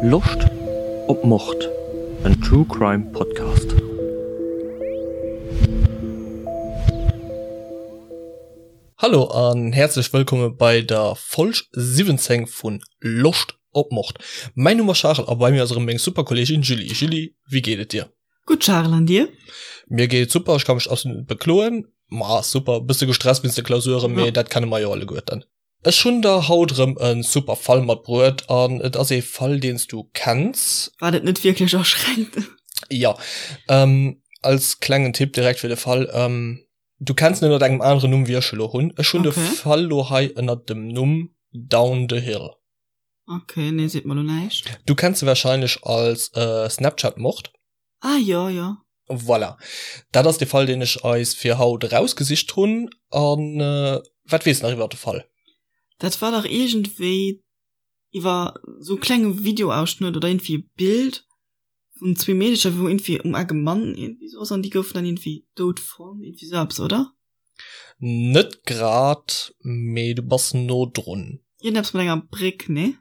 Loscht op Mord? En True Crime Podcast. Hallo an häerzlech wëllkomme bei der Folg 17 vun Loscht op Mord. Mäin Numm ass Charel a bei mir ass erëm meng super Kolleegin Julie. Julie, wéi geet et dir? Gutt Charel, an dir? Mir geet et super, ech ka mech absolut net bekloen. Ma super, bësse gestresst wéinst de Klausuren, mee dat kenne mer jo alleguerten. Ech hunn der haut erëm e super Fall matbruet an et ass ee Fall, deen s du kenns. Wat et net wierklech aschränkt. Jo, als klengen Tipp direkt fir de Fall, du kenns en ënnert engem aneren Numm wéi ech e lo hunn. Ech hunn de Fall lo hei ënnert dem Numm Down the Hill. Ok, nee seet mer lo näischt. Du kenns se wahrscheinlech als Snapchat-Mord. Ah jo, jo. Voilà, dat ass de Fall deen ech eis fir haut erausgesicht hunn. An wat weess nach iwwer de Fall? Dat war dach iergendwéi iwwer sou e klenge Videoausschnëtt oder iergendwéi e Bild vun zwee Meedecher wou iergendwéi um Eck e Mann iergendwéi sou ass an déi goufen dann iergendwéi dout fonnt, iergendwéi sou eppes, oder? Net grad, mee du bass no drun. Iergendeppes mat enger Bréck, nee?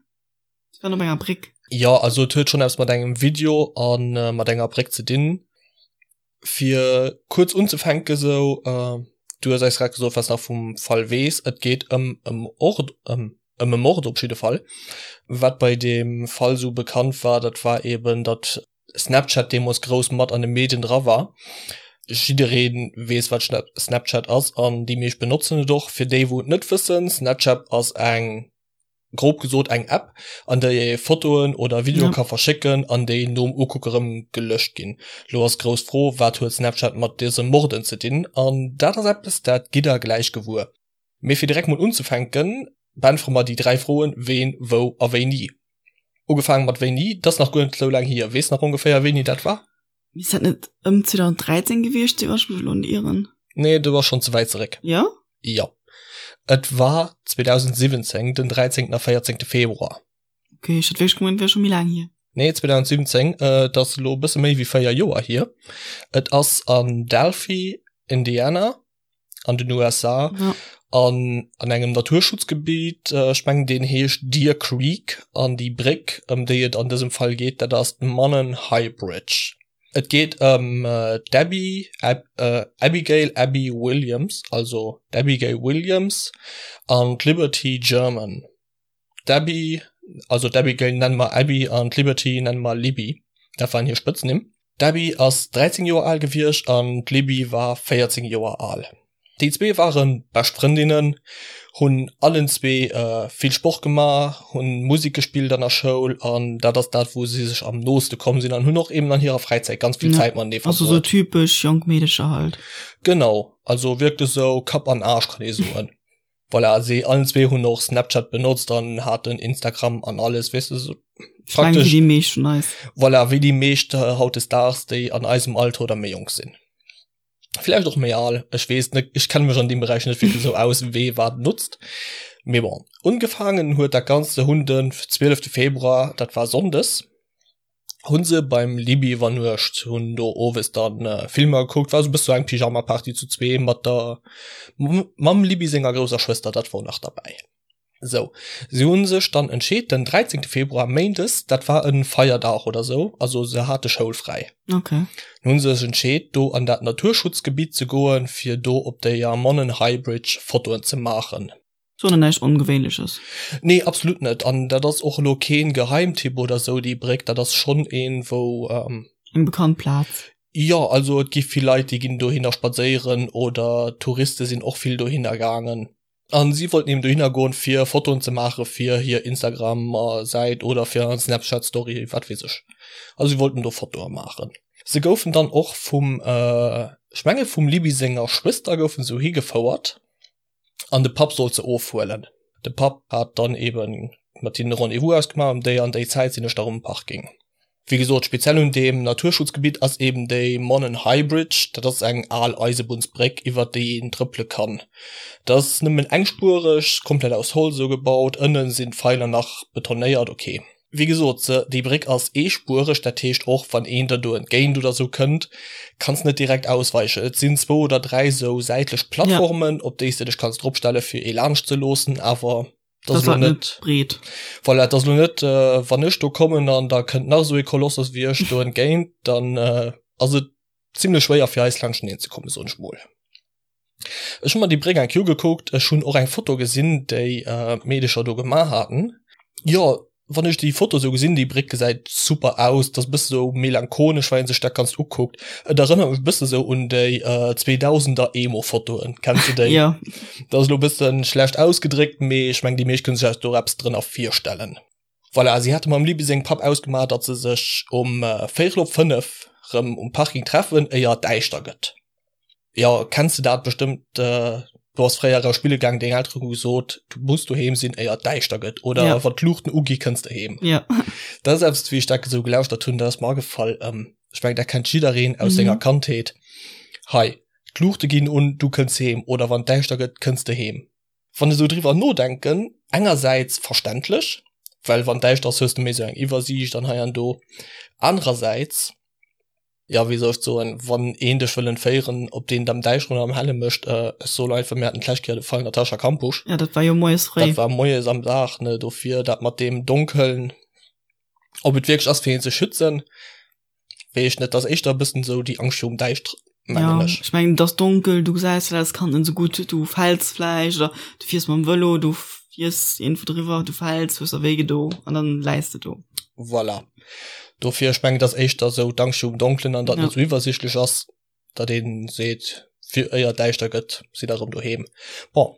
Si waren op enger Bréck. Jo, also et huet schonn eppes mat engem Video a mat enger Bréck ze dinn. Fir kuerz unzefänke sou, du hues eis grad gesot, wat s nach vum Fall weess. Et geet ëm e Mord, ëm e Mord op jidde Fall. Wat bei deem Fall sou bekannt war, dat war eben, datt Snapchat deemools grouss mat an de Medien dra war. Jidderee weess wat Snapchat ass an déi meescht benotzen et och. Fir déi wou et net wëssen, Snapchat ass eng, grob gesot eng App an déi ee Fotoen oder Videoe ka verschécken an déi nom Ukucke rëm gelöscht ginn. Lo ass d'grouss Fro, wat huet Snapchat mat dëse Morden ze dinn? An dat ass eppes dat gitt der gläich gewuer. Mee fir direkt mol unzefänken, beäntwere mer déi 3 Froen, Ween, wou a wéini. Ugefaange mat wéini, dat ass nach guer net esou laang hier. Weess nach ongeféier wéini dat war? Misst dat net ëm 2013 gewiescht sinn, wann ech mech elo net ieren? Nee, du bass schonn ze wäit zeréck. Jo? Jo. Et war 2017, den 13. a 14. Februar. Ok, ech hat wierklech gemengt, et wär scho méi laang hier. Nee, 2017, et ass elo e bësse méi wéi 4 Joer hier. Et ass an Delphi, Indiana. an den USA ja. an an engem Naturschutzgebiet äh, ech mengen deen heescht Deer Creek an déi Bréck ëm déi et an dësem Fall geet dat ass d'Mannen High Bridge. Et geet ëm äh, d'Abby Ab, äh, Abigail Abby Williams, also d'Abigail Williams an d'Liberty German. D'Abby, also d'Abigail nenne mer Abby an d'Liberty nenne mer Libby, dat waren hir Spëtznimm. D'Abby ass 13 Joer al gewiescht an d'Libby war 14 Joer al. Déi zwee ware bescht Frëndinnen, hunn allen zwee vill Sport gemaach, hunn Musek gespillt an der Schoul an dat ass dat wou si sech am nooste komm sinn an hunn och eben an hirer Fräizäit ganz vill Zäit matenee verbruet. Also sou typesch jonk Meedecher halt. Genau, also wierklech sou Kapp an Aarsch kann ee soen. Voilà, si allen zwee hunn och Snapchat benotzt an haten Instagram an alles, weess de, sou praktesch. Wéi déi meescht vun eis. Voilà, wéi déi meescht hautdesdaags, déi an eisem Alter oder méi jonk sinn. Vläicht och méi al, ech weess net, ech kenne mech an deem Beräich net wierklech esou aus, wee wat notzt. Mee bon, ungefaangen huet dat Ganzt, se hunn den 12 Februar, dat war sonndes, hunn se beim Libby iwwernuecht, hunn do owes dann Filmer gekuckt, war sou bësse sou eng Pyjama-Party zu zwee mat der mam Libby senger grousser Schwëster, dat wor nach derbäi. Sou, si hunn sech dann entscheet den 13 Februar, méindes, dat war e Feierdag oder sou, also se hate schoulfräi, Okay. hunn se sech entscheet do an dat Naturschutzgebitt ze goen, fir do op déier Monon High Bridge Fotoen ze maachen. Soen an näischt Ongewéinleches. Nee, absolut net. An dat ass och elo keen Geheimtipp oder sou, déi Bréck, dat ass schonn een, wou. Eng bekannt Plaz. Jo, also et gi vill Leit, déi ginn dohinner spadséieren oder Touriste sinn och vill dohinner gaangen. An si wollten eben dohinner goen, fir Fotoen ze maache fir hir Instagram-Säit oder fir eng Snapchat-Story, wat weess ech. Also si wollten do Fotoe maachen. Se goufen dann och vum, ech menge vum Libby senger Schwëster goufen se higefouert. an de Papp sollt se ofhuelen. De Papp hat dann eben mat hinnen e Rendez-vous ausgemaach, ëm déi an déi Zäit sinn ech da rëm am Parking. Wéi gesot, speziell un deem Naturschutzgebitt ass eben déi Monon High Bridge, dat ass eng al Eisebunnsbréck, iwwert déi een trëppele kann. Dat ass nëmmen engspuereg, komplett aus Holz esou gebaut, ënne sinn d'Feiler nach betonéiert, ok. Wéi gesot, se, déi Bréck ass eespuereg, dat heescht och wann een der do entgéint oder sou kënnt, kanns net direkt ausweichen. Et sinn zwou oder 3 sou säitlech Plattformen, op déi s de dech kanns dropstelle fir ee laanscht ze loossen, awer. Dat ass elo net breet. Voilà, dat ass elo net, wann ech do kommen an da kënnt nach esou ee Kolossos wéi ech do entgéint, dann ass et zimlech schwéier fir eis laanschteneen ze kommen, soen ech mol. Ech hu mer déi Bréck eng Kéier ugekuckt, ech hunn och eng Foto gesinn, déi d'Meedecher do gemaach haten. Jo, wann ech déi Foto sou gesinn, déi Bréck gesäit super aus, dat ass e bësse sou melancholesch, wa een sech dat Ganzt ukuckt. Et erënnert mech e bësse sou un déi 2000er Emo-Fotoen, kenns de déi? Jo. Dat ass elo e bësse schlecht ausgedréckt, mee ech meng déi meescht kënne sech do eppes drënner virstellen. Voilà, si hate mam Libby sengem Papp ausgemaach, datt se sech um véierel op 5 rëm um Parking treffen, éier et däischter gëtt. Jo, kenns de dat bestëmmt, du ass fréier eraus spille gaang, deng Elteren hu gesot, du muss doheem sinn éier et däischter gëtt oder Ja. wann d'Luuchten ugi kënns de heem. Ja. Dat ass eppes, wéi ech dat esou gelauschtert hunn, dat ass mer agefall, ech mengen dat kennt jiddereen aus Mhm. senger Kandheet, hei d'Luuchte ginn un, du kënns heem oder wann et däischter gëtt, kënns de heem. Wann ech esou driwwer nodenken, engersäits verständlech, well wann däischter ass, hues de méi esou eng Iwwersiicht an hei an do, anerersäits, ja wéi soll ech soen, wann een dech wëll entféieren, ob deen et am Däischteren oder am Helle mécht, ech soen einfach, mir haten d'lescht Kéier de Fall Natascha Kampusch. Ja, dat war jo moies fréi. Dat war moies am Dag, ne, dofir dat mat deem Donkeln, ob et wierklech ass fir een ze schützen, weess ech net, dat ass éischter e bëssen esou déi Angscht virum Däischteren, mengen Ja, ech. ech mengen, et ass donkel, du gesäis dat als Kand net esou gutt, du fäls vläicht oder du fiers mam Vëlo, du fiers iergendwou driwwer, du fäls, hues der wéi gedo an dann läis de do. Voilà. Dofir, ech mengen, et ass éischter esou d'Angscht virum Donkelen an datt Ja. net esou iwwersichtlech ass, datt ee seet, fir éier et däischter gëtt, sidd der erëm doheem. Bon,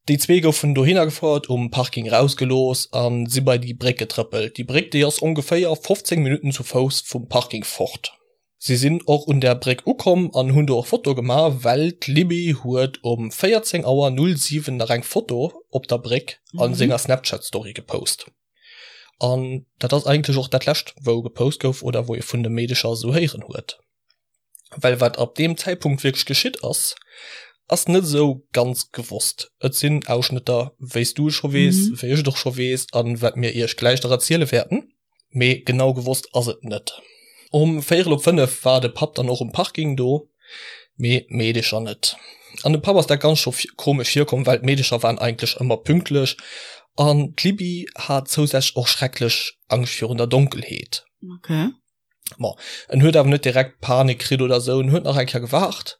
déi zwee goufen dohinner gefouert, um Parking erausgelooss a si bei déi Bréck getrëppelt. Déi Bréck, déi ass ongeféier 15 Minutten zu Fouss vum Parking fort. Si sinn och un där Bréck ukomm an hunn do och Fotoe gemaach, well d'Libby huet um 14 Auer 07 nach eng Foto op der Bréck a senger Snapchat-Story gepost. An dat ass eigentlech och dat lescht wou gepost gouf oder wou ee vun de Meedecher esou héieren huet. Well wat ab deem Zäitpunkt wierklech geschitt ass, ass net esou ganz gewosst. Et sinn Ausschnëtter, wéi s du et scho weess, wéi ech et och scho weess an wat mir iech gläich nach erziele wäerten. Mee genau gewosst ass et net. Um véierel op 5 war de Papp dann och um Parking do, mee d'Meedecher net. An dem Papp ass dat Ganzt scho komesch virkomm, well d'Meedecher waren eigentlech ëmmer pünktlech an d'Libby hat zousätzlech och schrecklech Angscht virun der Donkelheet. Okay. Bon, en huet awer net direkt Panik kritt oder sou, en huet nach eng Kéier gewaart,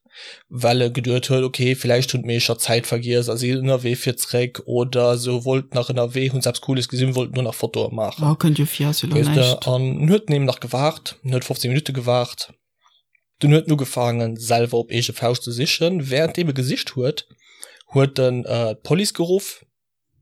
well e geduet huet, okay, villäicht hunn d'Meecher d'Zäit vergiess a si ënnerwee fir zréck oder sou, wollten nach ënnerwee, hunn se eppes Cooles gesinn, wollten do nach Fotoe maachen. Oh, kënnt jo vir, ass jo lo Weess de, näischt. an en huet eben nach gewaart, en huet 15 Minutte gewaart, dunn huet en ugefaangen, selwer op eege Fauscht ze sichen. Wärenddeem e gesicht huet, huet en d'Police geruff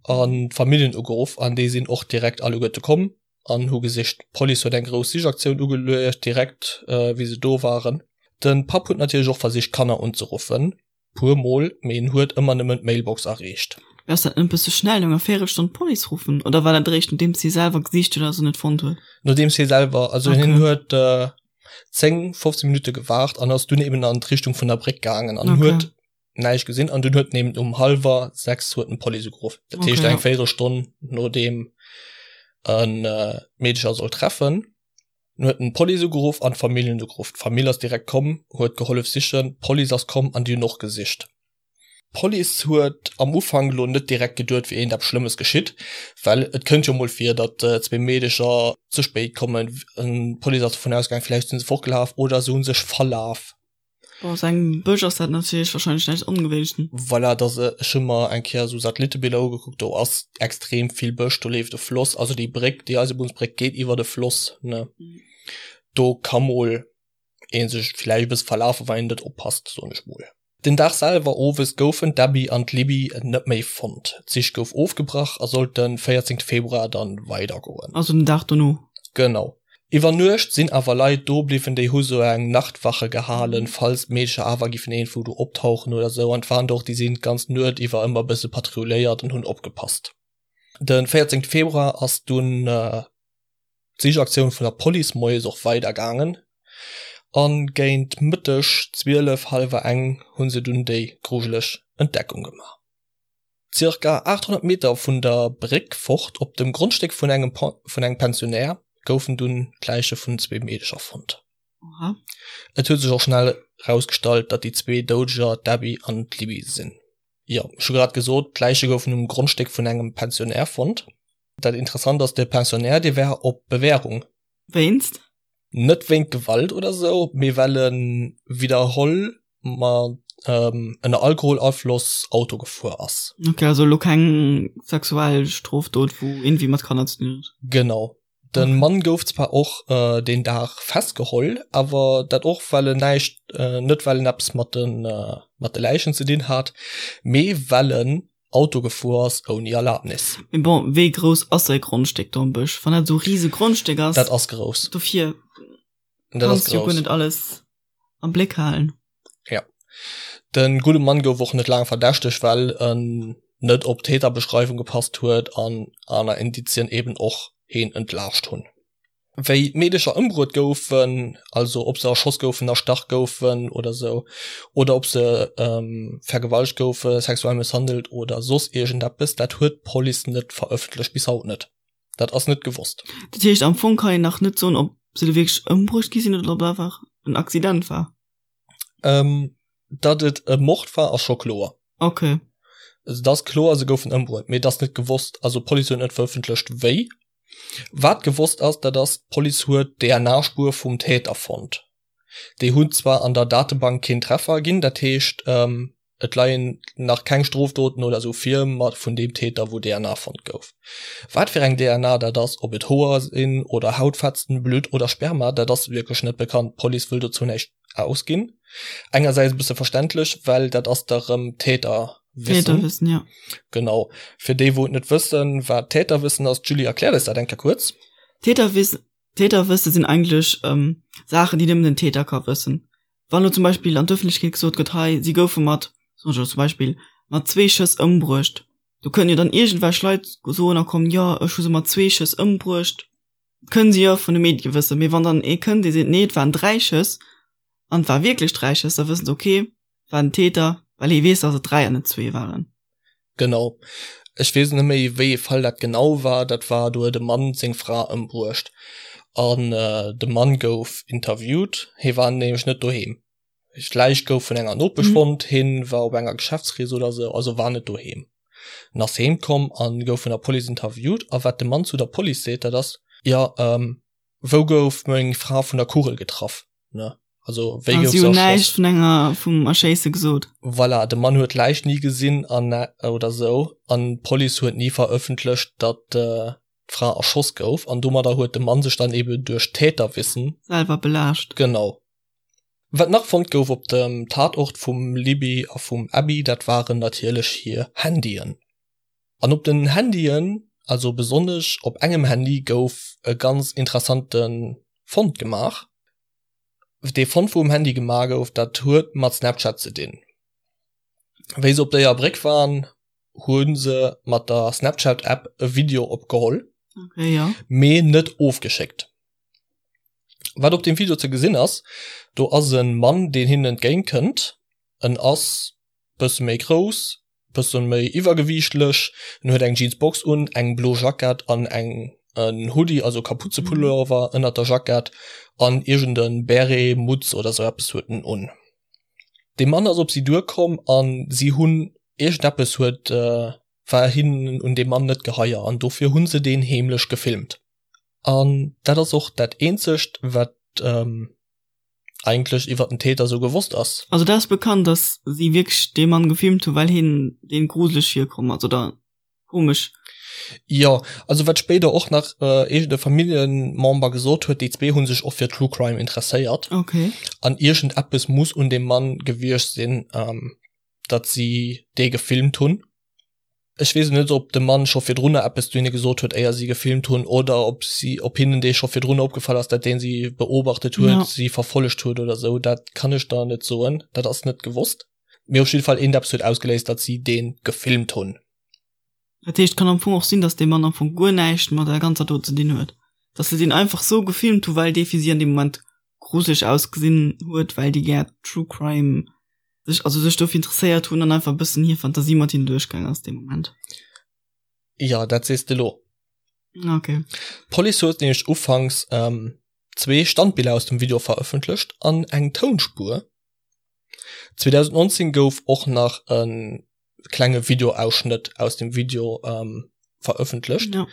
an d'Familljen ugeruff an déi sinn och direkt alleguerte komm an hu gesicht. D'Police huet eng grouss Sichaktioun ugeluecht, direkt wéi se do waren. De Papp huet natierlech och versicht d'Kanner unzeruffen, puer mol, mee en huet ëmmer nëmmen d'Mailbox erreecht. Mee ass dat net e bësse schnell, no enger Véierelstonn d'Police ruffen? Oder war dat eréischt nodeems hie selwer gesicht huet a se net fonnt huet? Nodeems hie selwer, also hien Okay. huet 10, 15 Minutte gewaart an ass dunn eben an d'Richtung vun der Bréck gaangen an Okay. huet näischt gesinn an dunn huet en eben um hallwer 6 huet en d'Police ugeruff. Dat Okay, heescht ja. eng Véierelstonn nodeem en d'Meedecher sollt treffen. Dunn huet en d'Police ugeruff an d'Familljen ugeruff. D'Famill ass direkt komm, huet gehollef sichen, d'Police ass komm an déi hunn och gesicht. D'Police huet am Ufank elo net direkt geduet wier iergendeppes Schlëmmes geschitt, well et kënnt jo mol vir, datt zwee Meedecher ze spéit kommen. D'Police ass dovun ausgaangen, villäicht sinn se fortgelaf oder se hu sech verlaf. Bon, aus engem Bësch ass dat natierlech wahrscheinlech näischt Ongewéinleches. Voilà, dass ech hu mer eng Kéier esou Satellitebiller ugekuckt, do ass extrem vill Bësch, do leeft e Floss, also déi Bréck, déi Eisebunnsbréck geet iwwer de Floss, ne. Do ka mol ee sech villäicht e bësse verlafen, wann een net oppasst, soen ech mol. Den Dag selwer owes goufen d'Abby an d'Libby net méi fonnt. D'Sich gouf ofgebrach a sollt de 14 Februar dann weidergoen. Also den Dag dono. Genau. Iwwer Nuecht sinn awer Leit do bliwwen, déi hu sou eng Nachtwache gehalen, falls d'Meedercher awer giffen iergendwou do optauchen oder sou. An et waren der och, déi sinn d'ganz Nuet iwwer ëmmer e bësse patrulléiert an hunn opgepasst. De 14 Februar ass dunn d'Sichaktioun vun der Police moies och weider gaangen a géint Mëtteg 12, hallwer eng hu se dunn déi grujeleg Entdeckung gemaach. Zirka 800 Meter vun der Bréck fort, op dem Grondstéck vun engem vun engem Pensionär, goufen dunn d'Läiche vun zwee Meedecher fonnt. Oha. Et huet sech och schnell erausgestallt, datt déi zwee Doudeger d'Abby an d'Libby sinn. Jo, ech hu grad gesot, d'Läiche goufen um Grondstéck vun engem Pensionnaire fonnt. Dat Interessant ass, de Pensionnaire, dee war op Bewährung. Wéinst? Net wéint Gewalt oder sou, mee well e widderholl mat ënner Alkoholafloss Auto gefuer ass. Ok, also elo keng sexuell Strofdot, wou iergendwéi mat Kanner ze dinn huet. Genau. De Mann gouf zwar och deen Dag festgeholl, awer dat och well en näischt, net well en eppes mat de mat de Läichen ze dinn hat, mee well en Auto gefuer ass ouni Erlabnis. Mee bon, wéi grouss ass säi Grondstéck do am Bësch? Wann dat esou e rise Grondstéck ass. Dat ass grouss. Dofir kanns du jo guer net alles am Bléck halen. Ja. De gudde Mann gouf och net laang verdächtegt, well en net op d'Täterbeschreiwung gepasst huet an aner Indizien eben och heen entlaascht hunn. Wéi d'Meedecher ëmbruet goufen, also ob se erschoss goufen, erstach goufen oder sou, oder ob se vergewaltegt goufen, sexuell mësshandelt oder soss iergendeppes, dat huet d'Police net verëffentlecht, bis haut net. Dat ass net gewosst. Dat heescht, am Fong kann een nach net soen, ob se do wierklech ëmbruecht gi sinn oder ob et einfach en Accident war. Ähm, datt et e Mord war, ass scho kloer. Okay. Also, et ass kloer, se goufen ëmbruet, mee et ass net gewosst, also d'Police huet net verëffentlecht, wéi. Wat gewosst ass, dat ass, d'Police huet d'DNA-Spuer vum Täter fonnt. Déi hunn zwar an der Datebank keen Treffer ginn, dat heescht, Et leien nach keng Strofdoten oder sou vir, ma vun deem Täter wou DNA fonnt gouf. Wat fir eng DNA dat ass, ob et Hoer sinn oder Hautfetzen, Blutt oder Sperma, dat ass wierklech net bekannt. D'Police wëll dozou näischt ausginn. Engersäits e bësse verständlech, well dat ass da rëm Täterwissen. Täterwissen, ja. Genau. Fir déi wou et net wëssen, wat Täterwissen ass, d'Julie erkläert eis dat eng Kéier kuerz. Täterwissen, Täterwësse sinn eigentlech Saachen, déi nëmmen den Täter ka wëssen. Wann elo zum Beispill an d'Ëffentlechkeet gesot gëtt, hei si goufe mat, soen ech elo zum Beispill, mat zwee Schëss ëmbruecht, do kënnen jo dann iergendwelch Leit soen a kommen, jo ech hu se mat zwee Schëss ëmbruecht, kënnen se jo vun de Medie wëssen. Mee wann dann ee kënnt, dee seet, nee et waren dräi Schëss an et war wierklech dräi Schëss, da wëssen se, okay, war den Täter, well hie weess, datt et dräi an net zwee waren. Genau. Ech weess net méi, wéi ee Fall dat genau war. Dat war, do huet e Mann seng Fra ëmbruecht an de Mann gouf interviewt. Hie war nämlech net doheem. D'Läich gouf vun enger Nopesch fonnt. Hien war op enger Geschäftsrees oder sou, also war net doheem. En ass heem komm a gouf vun der Police interviewt. A wat de Mann zu der Police seet, dat ass, Jo, wou gouf meng Fra vun der Kugel getraff? Ne? Also wéi gouf se näischt vun enger vum Erschéisse gesot. Voilà, de Mann huet d'Läich ni gesinn an oder sou an d'Police huet ni verëffentlecht, datt d'Fra erschoss gouf an domadder huet de Mann sech dann eben duerch Täterwissen selwer belaascht. Genau. Wat nach fonnt gouf op dem Tatort vum Libby a vum Abby, dat waren natierlech hir Handyen. An op den Handyen, also besonnesch op engem Handy gouf e ganz interessante Fond gemaach. Dee Fond wou um Handy gemaach gouf, dat huet mat Snapchat ze dinn. Wéi se op déier Bréck waren, hu se mat der Snapchat App e Video opgeholl, okay, ja. mee net ofgeschéckt. Wat op dem Video ze gesinn ass, do ass e Mann deen hinnen entgéint kënnt. En ass bësse méi grouss, bëssen méi iwwergewiichtlech, en huet eng Jeansbox un, eng blo Jackett an eng en Hoodie, also Kapuzepullover ënnert der Jackett an iergend en Beret, Mutz oder sou eppes huet en un. Dee Mann ass op si duerkomm an si hunn iergendeppes huet war hinnen un deem Mann net geheier an dofir hunn se deen heemlech gefilmt. An dat ass och dat eenzegt wat eigentlech iwwer den Täter sou gewosst ass. Also dat ass bekannt, dass si wierklech dee Mann gefilmt hunn, well hien deenen gruseleg virkomm ass oder komesch. Jo, also wat spéider och nach iergend e Familljemember gesot huet, déi zwee hu sech och fir True Crime interesséiert. Okay. An iergend eppes muss un deem Mann gewiescht sinn, datt si dee gefilmt hunn. Ech weess net, ob de Mann scho virdrunner eppes zu hinne gesot huet, éier si gefilmt hunn, oder ob si, ob hinnen dee scho virdrunner opgefall ass, datt dee si beobachtet huet, ja. si verfollegt huet oder sou. Dat kann ech der net soen, dat ass net gewosst. Mee op jidde Fall eent eppes huet ausgeléist, datt si dee gefilmt hunn. Dat heescht, kann am Fong och sinn, datt dee Mann am Fong guer näischt mat der ganzer Dot ze dinn huet. Datt se deen einfach sou gefilmt hu well dee fir si an deem Moment gruseleg ausgesinn huet, well déi gär True Crime sech, also sech dofir interesséiert hunn an einfach e bëssen hir Fantasie mat hinnen duerchgaang ass dee Moment. Jo, dat sees de lo. Okay. D'Police huet nämlech ufanks zwee Standbiller aus dem Video verëffentlecht an eng Tounspuer. 2019 gouf och nach e. klenge Videoausschnëtt aus dem Video ähm, verëffentlecht. Ja.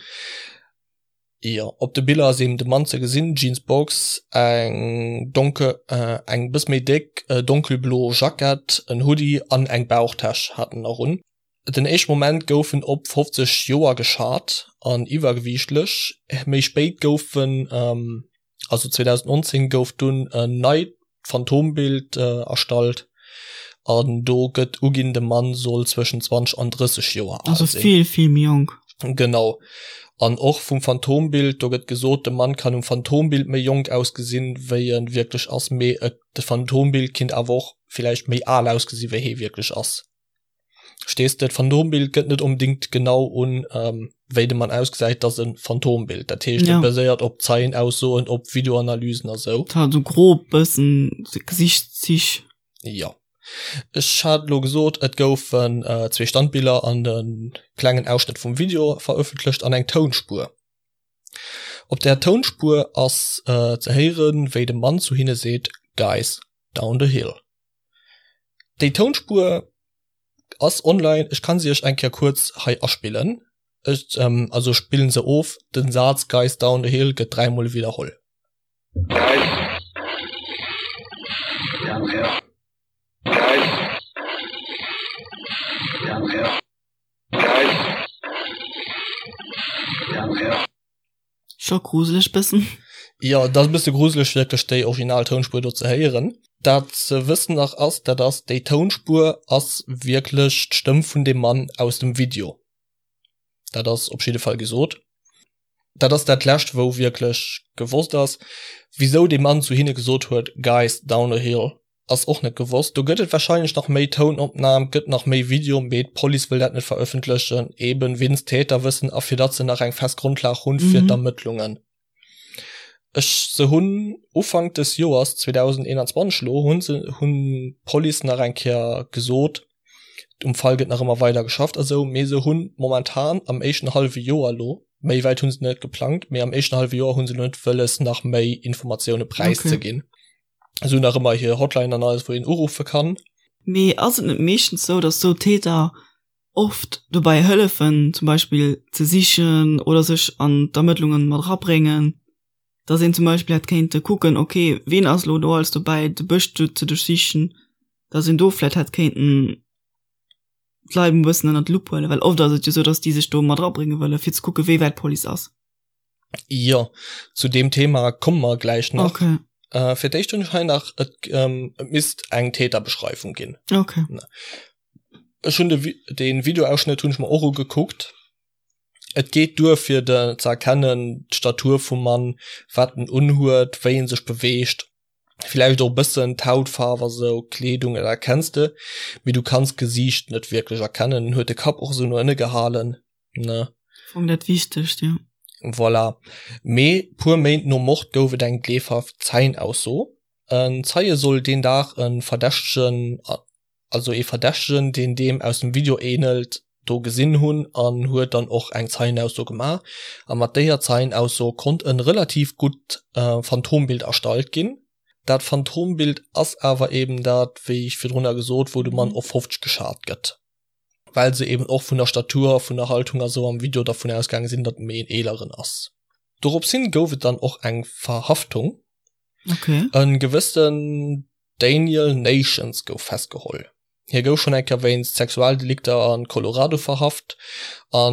Jo, op de Biller ass eben de Mann ze gesinn, Jeans Box, eng donke äh, eng bëss méi déck äh, donkelblo Jackett, en Hoodie an eng Bauchtäsch hat en nach un. Den éischte Moment gouf en op 50 Joer geschat an iwwergewiichtlech. Méi spéit gouf en ähm, also 2019 gouf dunn en neit Phantombild erstallt an do gëtt uginn, de Mann soll zwëschen 20 an 30 Joer al sinn. Also vill, vill méi jonk. Genau. An och vum Phantombild, do gëtt gesot, de Mann kann um Phantombild méi jonk ausgesinn, wéi e wierklech ass, mee et, de Phantombild kinnt awer och villäicht méi al ausgesinn, wéi hee wierklech ass. Verstees de? D'Phantombild gëtt net onbedingt genau un, wéi de Mann ausgesäit, et ass e Phantombild. Dat heescht, et baséiert op Zeienaussoen, op Videoanalysen a sou. Et hat esou grob bëssen Gesichtszich. Jo. Ech hat elo gesot, et goufen zwee Standbiller an e klengen Ausschnëtt vum Video verëffentlecht an eng Tounspuer. Op där Tounspuer ass ze héieren, wéi de Mann zu hinne seet, Guys, down the hill. Déi Tounspuer ass online, ech kann se iech eng Kéier kuerz hei aspillen. Ech ähm, also spillen se of, den Saz Guys down the hill gëtt dräimol widderholl. Guys down the hill. Guys down the hill. Guys down the hill. Scho gruseleg bëssen. Jo, et ass e bësse gruseleg wierklech déi original Tounspuer do ze héieren. Dat ze wëssen nach ass, dat ass, déi Tounspuer ass wierklech d'Stëmm vun deem Mann aus dem Video. Dat ass op jidde Fall gesot. Dat ass dat lescht wou wierklech gewosst ass. Wisou dee Mann zu hinne gesot huet, Guys, down the hill, Ass och net gewosst. Do gëtt et wahrscheinlech nach méi Tounopnahm, gëtt nach méi Video, mee d'Police wëll dat net verëffentlechen, eben winst Täterwëssen a fir datt se nach eng fest Grondlag hunn fir d'Ermëttlungen. Ech se hunn Ufank des Joers 2021 elo hunn se hunn d'Police nach eng Kéier gesot, um Fall gëtt nach ëmmer weider geschafft a sou, mee se hunn momentan am éischten hallwe Joer elo, méi wäit hunn se net geplangt, mee am éischten hallwe Joer hunn se elo net wëlles nach méi Informatioune präiszeginn. Se hunn nach ëmmer hir Hotline an alles, wou een uruffe kann. Mee ass et net meeschtens sou, dass sou Täter oft dobäi hëllefen, zum Beispill ze sichen oder sech an d'Ermëttlungen mat erabréngen, dass een zum Beispill hätt kéinte kucken, okay, ween ass elo do alles dobäi, de Bësch do ze duerchsichen, dass een do vläicht hätt kéinten d'Leit e bëssen ënnert d'Lupp huelen, well oft ass et jo sou, dass déi sech do mat erabrénge wëllen, fir ze kucken, wéi wäit d'Police ass. Jo, zu deem Thema komme mer gläich nach. Okay. Äh, fir d'éischt hunn ech hei nach, et, ähm, et misst eng Täterbeschreibung ginn. Okay. Ech hunn de, de Videoausschnëtt hunn ech mer och ugekuckt. Et geet duer fir de ze erkennen, d'Statur vum Mann, wat en unhuet, wéi en sech beweegt, villäicht och e bëssen d'Hautfaarf a sou, d'Kleedung, dat erkenns de, mee du kanns d'Gesiicht net wierklech erkennen. En huet de Kapp och esou no ënne gehalen. ne? Fong dat Wichtegst, jo. Voilà. Mee puer Méint nom Mord gouf et eng gleefhaft Zeienausso. En Zeie soll deen Dag e Verdächtegen, also ee Verdächtegen, deen deem aus dem Video änelt, do gesinn hunn an huet dann och eng Zeienausso gemaach. A mat déier Zeienausso konnt e relativ gutt Phantombild erstallt ginn. Dat Phantombild ass awer eben dat, wéi ech virdrunner gesot, wou de Mann op 50 geschat gëtt. well se eben och vun der Statur, vun der Haltung a sou am Video dervun ausgaange sinn, datt en méi en eeleren ass. Dorops hin gouf et dann och eng Verhaftung. Okay. E gewëssen Daniel Nations gouf festgeholl. Hie gouf schonn eng Kéier wéinst Sexualdelikter a Colorado verhaft. A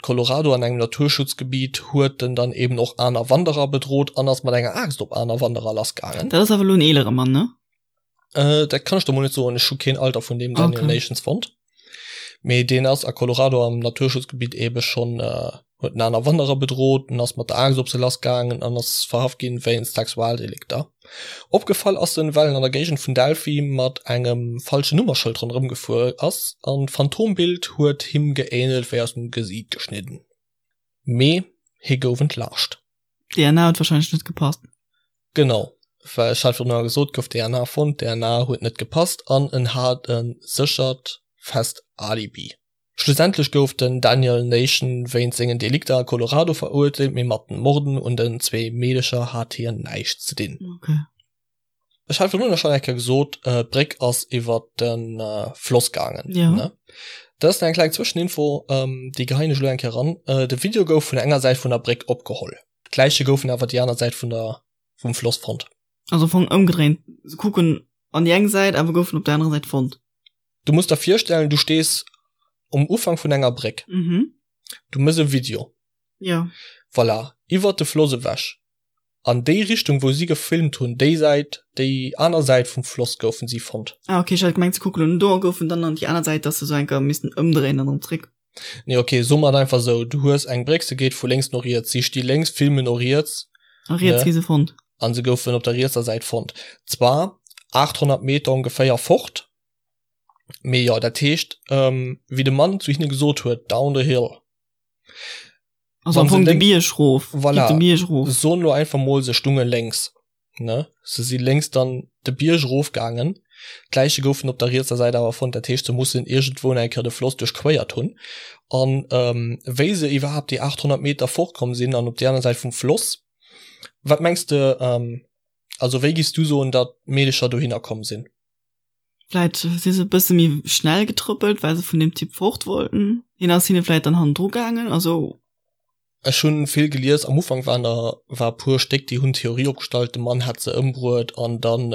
Colorado an engem Naturschutzgebiet huet en dann eben och aner Wanderer bedrot an ass mat enger Aaxt op aner Wanderer lassgaangen. Dat ass awer elo en eelere Mann, ne? Äh, dat kann ech der mol net soen. Ech hu keen Alter vun deem Daniel okay. Nations fonnt. Mee deen ass a Colorado am Naturschutzgebiet ebe schon äh, huet en aner Wanderer bedroht en ass mat der Aaxt op se lass gaangen an ass verhaft ginn wéinst Sexualdelikter. Opgefall ass en, well en an der Géigend vun Delphi mat engem falschen Nummerschëld ronderëm gefuer ass an d'Phantombild huet him geähnelt wéi aus dem Gesiit geschnidden. Mee hie gouf entlaascht. DNA huet wahrscheinlech net gepasst. Genau, well ech hat virdrun gesot, gouf DNA fonnt, DNA huet net gepasst an en hat e séchert fest Alibi. Schlussendlech gouf den Daniel Nation wéinst sengen Delikter a Colorado verurteelt, mee mat den Morden un den zwee Meedecher hat hien näischt ze dinn. Okay. Ech hat virdrun schonn eng Kéier gesot, d'Bréck ass iwwer de Floss gaangen. Ja. Ne? Dat ass eng kleng Zwëscheninfo, déi geheien ech elo eng Kéier eran. De Video gouf vun enger Säit vun der Bréck opgeholl. D'Läiche goufen awer déi aner Säit vun der, vum Floss fonnt. Also am Fong ëmgedréint, se kucken an déi eng Säit, awer goufen op der anerer Säit fonnt. Du muss der virstellen, du stees um Ufank vun enger Bréck. Mhm. Du mëss e Video. Ja. Voilà, iwwert de Floss ewech. An déi Richtung wou si gefilmt hunn, déi Säit, déi aner Säit vum Floss goufen si fonnt. Ah ok, ech hat gemengt se kucken un do a goufen dann an déi aner Säit, dass se sou enker missten ëmdréinen an erëm zréck. Nee ok, soe mer et einfach esou, du hues eng Bréck, se geet vu lénks no riets, si sti lénks, filmen no riets. A riets gi se fonnt. An se goufen op der rietser Säit fonnt. Zwar 800 Meter ongeféier fort, mee jo, dat heescht, wéi de Mann zu hinne gesot huet, down the hill. Also am Fong de Bierg rof. Voilà. De Bierg rof. Soen lo einfach mol, se stunge lénks, ne? Se si lénks dann de Bierg erofgaangen. D'Läiche goufen op der rietser Säit awer fonnt. Dat heescht, se mussen iergendwou eng Kéier de Floss duerchquéiert hunn. An wéi se iwwerhaapt déi 800 Meter fortkomm sinn an op déi aner Säit vum Floss, wat mengs de, also wéi giffs du soen, datt d'Meedecher dohinner komm sinn? Vläit si se e bësse méi schnell getrëppelt, well se vun deem Typ fort wollten. Hien ass hinne vläit dann hannendru gaangen, also. Ech hunn vill gelies, am Ufank waren der war e puer Stéck, déi hunn d'Theorie opgestallt, de Mann hätt se ëmbruet an dann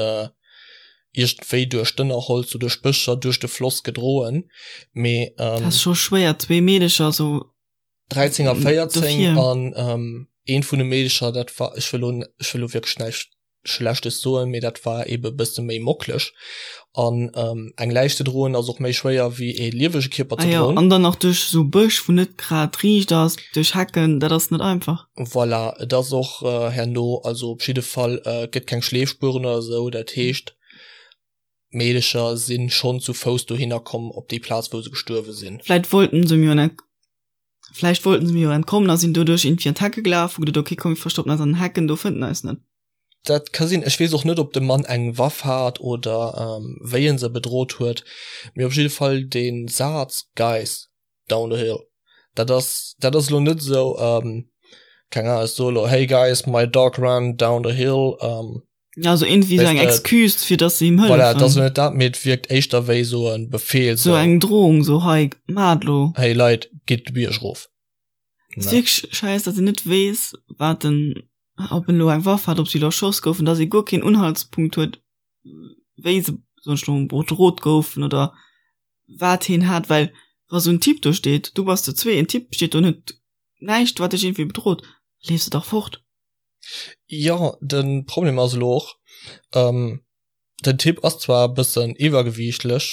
iergendwéi duerch d'Ënnerholz oder duerch d'Bëscher duerch de Floss gedroen, mee. Dat ass scho schwéier, zwee Meedecher esou. 13 a 14 an eent vun de Meedecher, dat war, ech wëll elo, ech wëll elo wierklech näischt Schlechtes soen, mee dat war ebe bësse méi mocklech. An eng Läich ze droen ass och méi schwéier wéi ee liewege Kierper ze droen. Ah jo, an dann nach duerch esou Bësch, wou net grad riicht ass, duerch Hecken, dat ass net einfach. Voilà, et ass och herno, also op jidde Fall, et gëtt keng Schleefspueren oder esou, dat heescht d'Meedecher si schonn zu Fouss dohinner komm op déi Plaz wou se gestuerwe sinn. Vläit wollten se mir jo, vläicht wollten se mir jo entkommen a sinn doduerch irgendwie an d'Hecke gelaf, hu geduet, okay komm mir verstoppen eis an den Hecken, do fënnt en eis net. Dat ka sinn. Ech weess och net, ob de Mann eng Waff hat oder wéi en se bedrot huet. Mee op jidde Fall dee Saz, Guys, down the hill, dat ass, dat ass elo net esou, keng Ahnung, ech soe elo, Hey guys, my dog ran down the hill. Ja, also irgendwie esou eng Excuse, fir datt se him hëllefen. Voilà, et ass elo net dat, mee et wierkt éischter wéi esou e Befeel. Esou eng Drohung, esou, Hei, maacht elo. Hey Leit, gitt de Bierg erof. Et ass wierklech scheiss, datt een net weess, wat en ob en elo eng Waff hat, ob si elo erschoss goufen, datt ee guer keen Unhaltspunkt huet, wéi se soen ech elo bedrot goufen oder wat hien hat, well wa sou en Typ do steet, du bass zu zwee, en Typ steet do an huet näischt wat dech iergendwéi bedrot, leefs de dach fort. Jo, de Problem ass elo och, den Typ ass zwar e bëssen iwwergewiichtlech,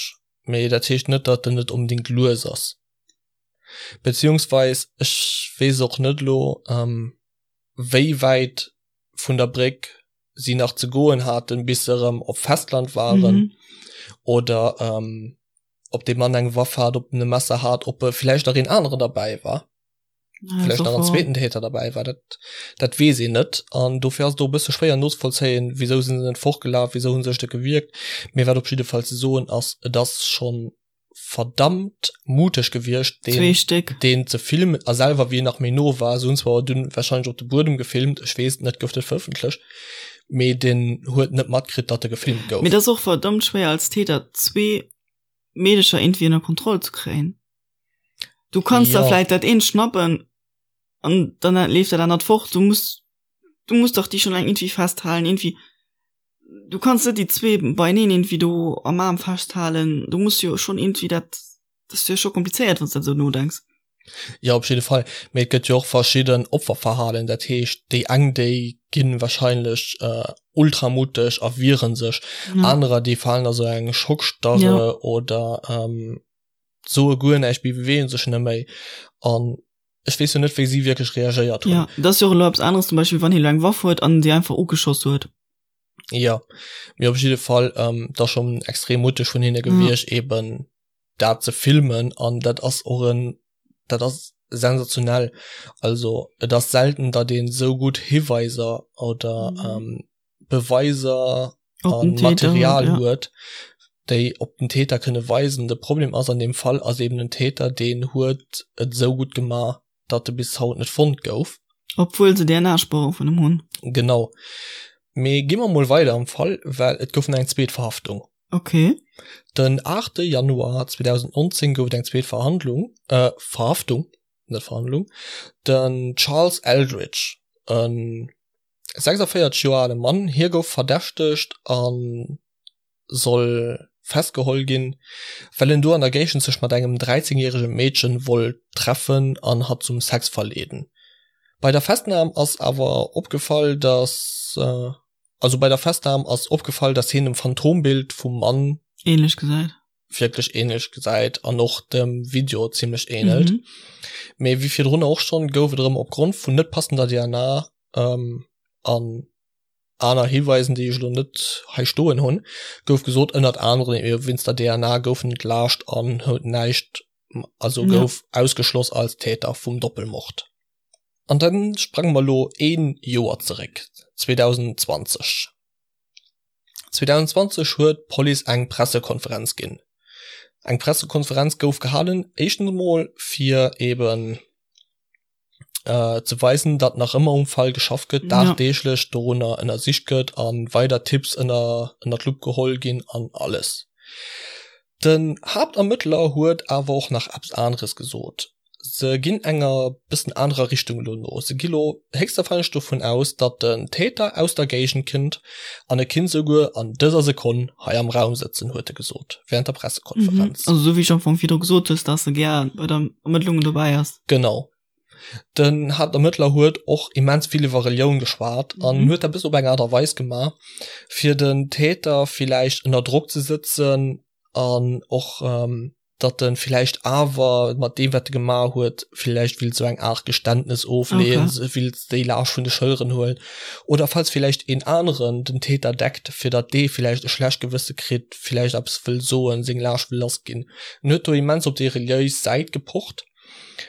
mee dat heescht net, datt en net onbedéngt lues ass. Beziehungsweis ech weess och net elo, wéi wäit vun der Bréck si nach ze goen haten, bis se erëm op Festland waren mhm. oder ähm, ob de Mann eng Waff hat, ob en e Messer hat, ob e vielleicht nach een aneren dabei war. Ja, vielleicht nach en zweeten Täter dabei war dat dat weess een net an dofir ass do bësse schwéier nozevollzéien, wieso sinn se net fortgelaf, wieso hunn sech de gewierkt. Mee wat op jidde Fall ze soen ass, et ass schonn verdammt muteg gewiescht deen, Stéck. deen ze filmen a selwer wéi en nach méi no war, se hunn zwar dunn wahrscheinlech op de Buedem gefilmt, ech weess et net, gouf dat verëffentlecht, mee deen huet net matkritt, datt e gefilmt gouf. Mee et ass och verdammt schwéier als Täter zwee Meedecher iergendwéi ënner Kontroll ze kréien. Du kanns der vläit dat eent schnappen an dann leeft dat anert fort, du muss du muss dach déi schonn eng iergendwéi festhalen, iergendwéi du kanns net déi zwee beieneen irgendwie do am Aarm festhalen, du muss jo schon irgendwie dat, dat ass jo scho komplizéiert wann s dat esou nodenks. Jo op jidde Fall, mee et gëtt jo och verschidden Opferverhalen, dat heescht déi eng déi ginn wahrscheinlech ultra mutteg a wieren sech, anerer déi falen a sou eng Schockstarre oder soe guer näischt, beweegen sech net méi an ech weess jo net wéi si wierklech reagéiert hunn. Jo, dat ass jo och elo eppes aneres zum Beispill wann hie elo eng Waff huet an si einfach ugeschoss huet. Jo, mee op jidde Fall ähm, dat ass schonn extrem mutteg vun hinne gewiescht ja. eben dat ze filmen an dat ass och en dat ass sensationell. Also et ass selten, datt een esou gutt Hiweiser oder mhm. ähm, Beweiser an Material ja. huet, déi op den Täter kënne weisen. De Problem ass an dem Fall ass eben den Täter, deen huet et esou gutt gemaach, datt e bis haut net fonnt gouf. Obwuel se DNA-Spuere vun em hunn. Genau. Mee gi mer mol weider am Fall, well et gouf nach eng zweet Verhaftung. Okay. Den 8. Januar 2019 gouf et eng zweet Verhandlung, äh, Verhaftung, net Verhandlung. Den Charles Eldridge, en 46 Joer ale Mann, hie gouf verdächtegt a soll festgeholl ginn, well en do an der Géigend sech mat engem 13 järege Meedchen wollt treffen an hatt zum Sex verleeden. Bei der Festnam ass awer opgefall, dass also bei der Festnam ass opgefall, dass hien dem Phantombild vum Mann ähnlech gesäit. Wierklech ähnlech gesäit an och dem Video zimmlech ähnelt. Mhm. Mee wéi virdrun och schonn, gouf et erëm opgrond vun net passender DNA an aner Hiweisen, déi ech elo net hei stoen hunn, gouf gesot, ënnert anerem ebe wéinst der DNA gouf en entlaascht an huet näischt, also gouf ausgeschloss als Täter vum Doppelmord. An da sprange mer elo ee Joer zeréck, 2020. 2020 huet d'Police eng Pressekonferenz ginn. Eng Pressekonferenz gouf gehalen, éischtens emol fir eben ze weisen, datt nach ëmmer um Fall geschafft gëtt, dagdeeglech dorunner ënnersicht gëtt a weider Tipps ënner ënner d'Lupp geholl ginn an alles. Den Haaptermëttler huet awer och nach eppes aneres gesot. Se ginn enger bëssen anerer Richtung elo no. Se gi lo héchstwahrscheinlech dovun aus, datt den Täter aus der Géigend kënnt an e kinnt souguer an dëser Sekonn hei am Raum sëtzen, huet e gesot wärend der Pressekonferenz. Mhm. Also sou wéi ech am Fong virdru gesot hues, dass e gär bei der Ermëttlungen dobäi ass. Genau. Den Haaptermëttler huet och immens vill iwwer Relioun geschwat an mhm. huet dat bis op eng Art a Weis gemaach, fir den Täter villäicht ënner Drock ze sëtzen an och ähm, datt en villäicht awer mat deem wat e gemaach huet, villäicht willt sou eng Art Geständnes ofleeën, okay. willt déi Laascht vun de Schëlleren huelen oder falls villäicht een aneren den Täter deckt, fir datt dee villäicht e schlecht Gewësse kritt, villäicht eppes wëll soen, seng Laascht wëll lass ginn. En huet do immens op déi reliéis Säit gepocht,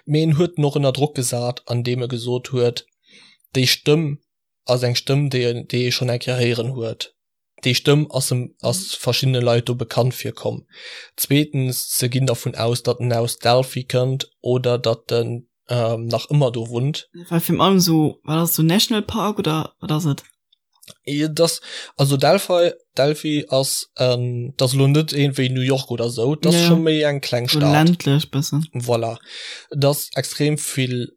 mee en huet en och ënner Drock gesat, andeem e gesot huet, déi Stëmm ass eng Stëmm, déi en, déi ee schonn eng Kéier héieren huet. Déi Stëmm ass em, ass verschiddene Leit do bekannt virkomm. Zweetens, se ginn dervun aus, datt en aus Delphi kënnt oder datt en nach ëmmer do wunnt. Well virun allem esou, wat ass et, sou National Park oder wat ass et? Et ass, also Delphi, Delphi ass, dat ass elo net iergendwéi New York oder esou, dat ass scho méi eng kleng Stad. Ländlech bëssen. Voilà. Et ass extrem vill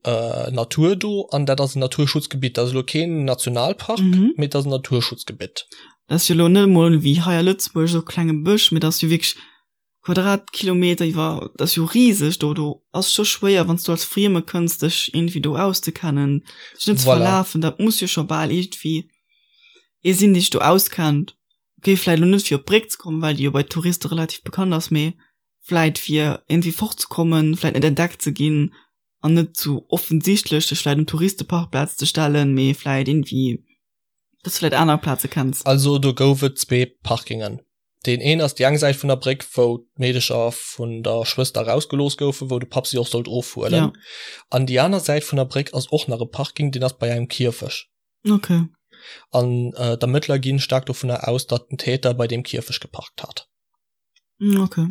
Natur do an dat ass en Naturschutzgebitt. Dat ass elo keen Nationalpark, mee et ass en Naturschutzgebitt. Dat ass jo elo net emol wéi hei a Lëtzebuerg esou e klenge Bësch, mee dat ass jo wierklech Quadratkilometer iwwer, dat ass jo riseg do. Do ass scho schwéier, wann s du als Frieme kënns, dech iergendwéi do auszekennen, dech net ze verlafen. Dat muss jo scho bal iergendwéi ee sinn, dee sech do auskennt. Okay, vläicht elo net fir op d'Bréck ze kommen, well déi jo bei Touriste relativ bekannt ass, mee vläit fir iergendwéi fortzekommen, vläit net entdeckt ze ginn an net zu offensichtlech dech vläit um Touristeparkplaz ze stellen, mee vläit iergendwéi, dass du vläit aner Plaze kenns. Also do gouf et zwee Parkingen. Deen een ass déi eng Säit vun der Bréck, wou d'Meedecher vun der Schwëster erausgelooss goufen, wou de Papp si och sollt ofhuelen. Ja. An déi aner Säit vun der Bréck ass och nach e Parking, deen ass bei engem Kierfech. Okay. An äh, d'Ermëttler ginn staark dovunner aus, datt den Täter bei deem Kierfech geparkt hat. Mm, okay.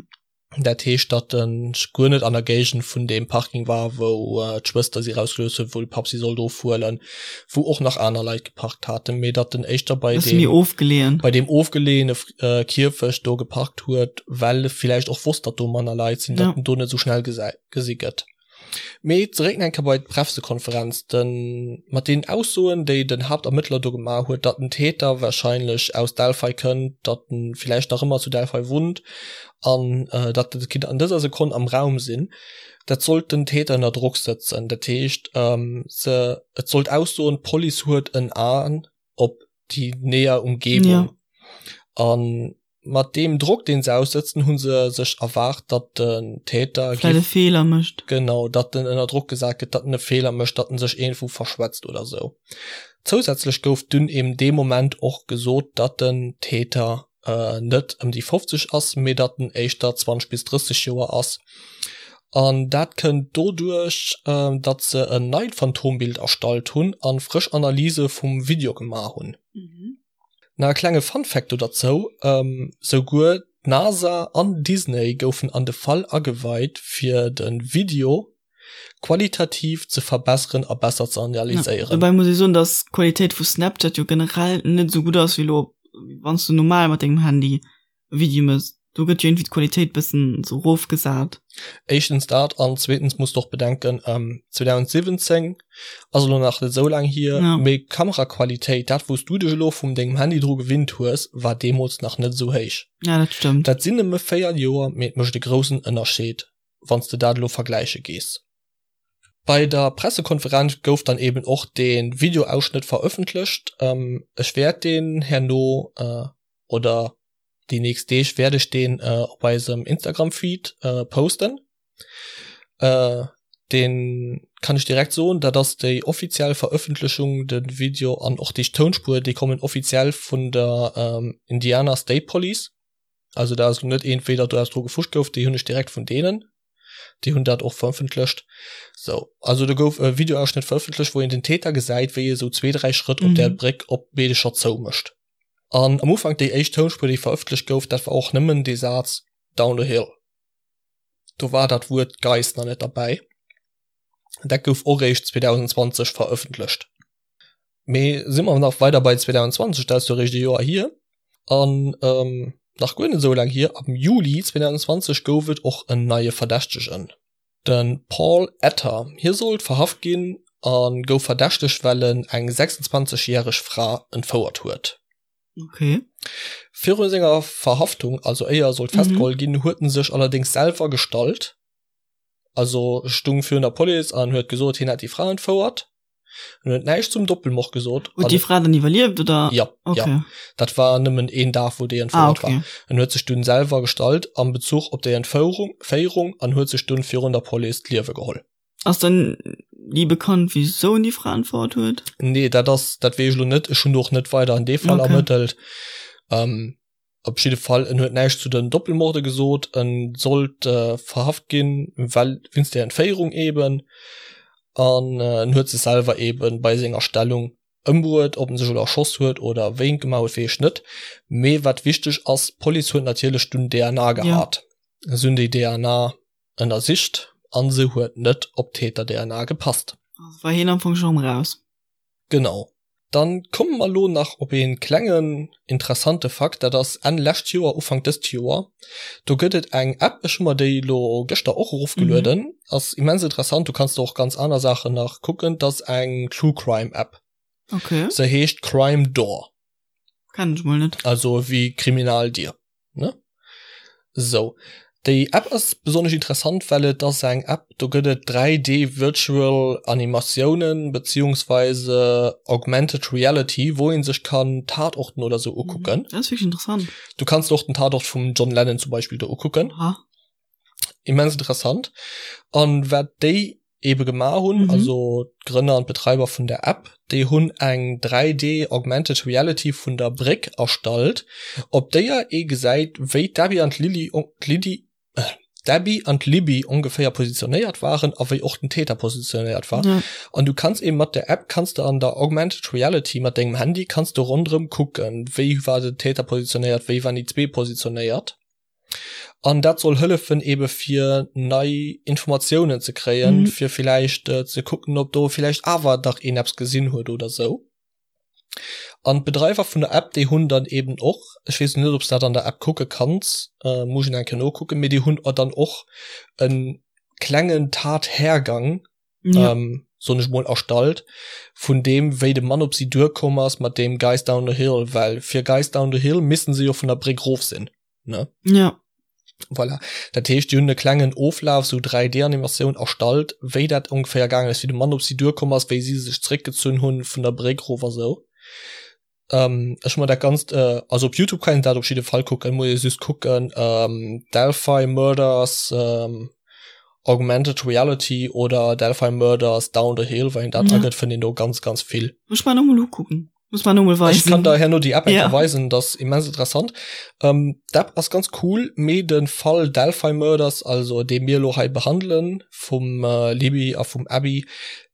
Dat heescht, datt en guer net an der Géigend vun deem Parking war, wou äh, d'Schwëster si rausgelooss huet, wou de Papp si sollt ofhuelen, wou och nach aner Leit geparkt haten, mee datt en éischter bei deem, ofgeleeën. bei deem ofgeleeëne äh, Kierfecht do geparkt huet, well e villäicht och wosst, datt do manner Leit sinn, datt ja. en do net esou schnell gesi gëtt. Mee zeréck nach eng Kéier bei d'Prefsekonferenz, den, mat deenen Aussoen, déi den Haaptermëttler do gemaach huet, datt den Täter wahrscheinlech aus Delphi kënnt, datt en villäicht nach ëmmer zu Delphi wunnt an datt et kinnt an dëser Sekonn am Raum sinn, dat sollt den Täter ënner Drock sëtzen. Dat heescht, se, et sollt aussoen, d'Police huet en Aen op déi näher Umgebung. Ja. An mat deem Drock, deen se aussëtzen, hu se sech erwaart, datt den Täter vläit e Feeler mécht. Genau, datt en ënner Drock gesat gëtt, datt en e Feeler mécht, datt en sech iergendwou verschwätzt oder sou. Zousätzlech gouf dunn eben dee Moment och gesot, datt den Täter net ëm déi 50 ass, mee datt en éischter 20 bis 30 Joer ass. An dat kënnt doduerch, datt se en neit Phantombild erstallt hunn a frësch Analyse vum Video gemaach hunn. Nach e klenge Fun Fact do derzou, Souguer d'NASA an Disney goufen an de Fall ageweit fir de Video. qualitativ ze verbesseren a besser ze analyséieren. Dobäi muss ee soen, dass d'Qualitéit vu Snapchat jo generell net esou gutt ass wéi elo wann s du normal mat dengem Handy e Video mëss. Do gëtt jo iergendwéi d'Qualitéit bëssen esou erofgesat. Éischtens dat an zweetens muss de och bedenken, 2017 ass elo nach net esou laang hier, mee d'Kameraqualitéit, dat wou s du dech elo vum dengem Handy dru gewinnt hues, war deemools nach net esou héich. Ja, dat stëmmt. Dat sinn nëmme 4 Joer, mee et mécht e groussen Ënnerscheed, wann s de dat elo vergläiche gees. Bei der Pressekonferenz gouf dann eben och de Videoausschnëtt verëffentlecht. Ech wäert deen herno oder déi nächst Deeg wäert ech deen op eisem Instagram-Feed posten. Deen kann ech direkt soen, dat ass déi offiziell Verëffentlechung, de Video an och déi Tounspuer, déi kommen offiziell vun der Indiana State Police. Also dat ass elo net iergendwéi, datt do eppes dru gefuscht gouf, déi hunn ech direkt vun deenen. Déi hunn dat och verëffentlecht. Sou, also do gouf e Videoausschnëtt verëffentlecht, wou een den Täter gesäit, wéi e sou zwee, dräi Schrëtt op där Bréck op d'Meedecher zoumécht. An am Ufank déi éischt Tounspuer, déi verëffentlecht gouf, dat war och nëmmen dee Saz Down the hill. Do war dat Wuert Guys nach net derbäi. Dat gouf och réischt 2020 verëffentlecht. Mee si mer nach weider bei 2020, dat ass jo réischt e Joer hier. An nach guer net esou laang hier, am Juli 2020 gouf et och en neie Verdächtegen, de Paul Etter. Hie sollt verhaft ginn a gouf verdächtegt, well en eng 26 järeg Fra entfouert huet. Okay. Viru senger Verhaftung, also éier e sollt festgeholl ginn, huet en sech allerdéngs selwer gestallt, also stung virun der Police an huet gesot, hien hätt déi Fra entfouert. En huet näischt zum Doppelmord gesot. Huet déi Fra dann iwwerlieft oder? Ja, okay. ja. Dat war nëmmen een Dag, wou déi entfouert ah, okay. war. En huet sech dunn selwer gestallt am Bezuch op déi Entfouerung Féierung an huet sech dunn virun der Police d'Liewe geholl. Ass dann ni bekannt, wisou en déi Fra entfouert huet? Nee, dat ass, dat weess ech lo net. Ech hunn do och net weider an dee Fall okay. ermëttelt. Ähm, op jidde Fall, en huet näischt zu den Doppelmorde gesot. En sollt äh, verhaft ginn, well wéinst der Entféierung eben. An äh, en huet sech selwer eben bei senger Stellung ëmbruet. Ob en sech elo erschoss huet oder wéi en gemaach huet, weess ech net. Mee wat wichteg ass, d'Police huet natierlech dunn DNA gehat. Ja. Se hunn déi DNA ënnersicht an se huet net op d'Täter-DNA gepasst. Also war hien am Fong schonn raus. Genau. Dann komme mer elo nach op ee klengen interessante Fakt, dat ass Enn lescht Joer, Ufank dëst Joer, do gëtt et eng App, ech hu mer déi elo gëschter och erofgelueden, ass immens interessant, du kanns do och ganz aner Saachen nach kucken, dat ass eng True Crime App. Okay. Se heescht Crime Door. Kennen ech mol net. Also wéi Kriminaldier. Ne? Sou. Déi App ass besonnesch interessant, well et ass eng App, do gëtt et 3D Virtual Animatiounen beziehungsweise Augmented Reality, wou een sech kann Tatorten oder sou ukucken. Dat ass wierklech interessant. Du kanns och den Tatort vum John Lennon zum Beispill do ukucken. Aha. Immens interessant. An wat déi ebe gemaach hunn, mhm. also d'Grënner an d'Betreiber vun der App, déi hunn eng 3D Augmented Reality vun der Bréck erstallt, op déier ee gesäit, wéi d'Abby an d'Lilly d'Lydie äh, d'Abby an d'Libby ongeféier positionéiert waren a wéi och den Täter positionéiert war. Ja. An du kanns eben mat der App kanns du an der Augmented Reality mat dengem Handy kanns du ronderëm kucken, wéi war den Täter positionéiert, wéi waren déi zwee positionéiert. An dat soll hëllefen ebe fir nei Informatiounen ze kréien, mm. fir villäicht äh, ze kucken, ob do villäicht awer dach een eppes gesinn huet oder sou. An d'Bedreiwer vun der App, déi hunn dann eben och, ech weess net, ob s dat an der App kucke kanns, äh, muss ech eng Kéier nokucken, mee déi hunn dann och en klengen Tathergang ja. ähm, soen ech mol erstallt vun deem wéi de Mann op si duerkomm ass mat deem Guys down the hill well fir Guys down the hill missten se jo vun der Bréck rof sinn ne ja voilà dat heescht déi hunn e klengen Oflaf sou 3D Animatioun erstallt wéi dat ongeféier gaangen ass wéi de Mann op si duerkomm ass wéi si sech zréckgezunn hunn vun der Bréck rof a sou Ähm, ech hu mer dat ganzt äh, also op Youtube kann een dat op jidde Fall kucken, muss ee just kucken ähm, Delphi Murders ähm, Augmented Reality oder Delphi Murders Down the Hill, wann een dat ja. agëtt, fënnt een do ganz ganz vill. Muss mer nochmol ukucken. Muss mer nochmol weisen. Ech kann der herno déi App ja. weisen, dat ass immens interessant. Ähm, d'App ass ganz cool, mee de Fall Delphi Murders, also dee mir elo hei behandelen, vum äh, Libby a vum Abby,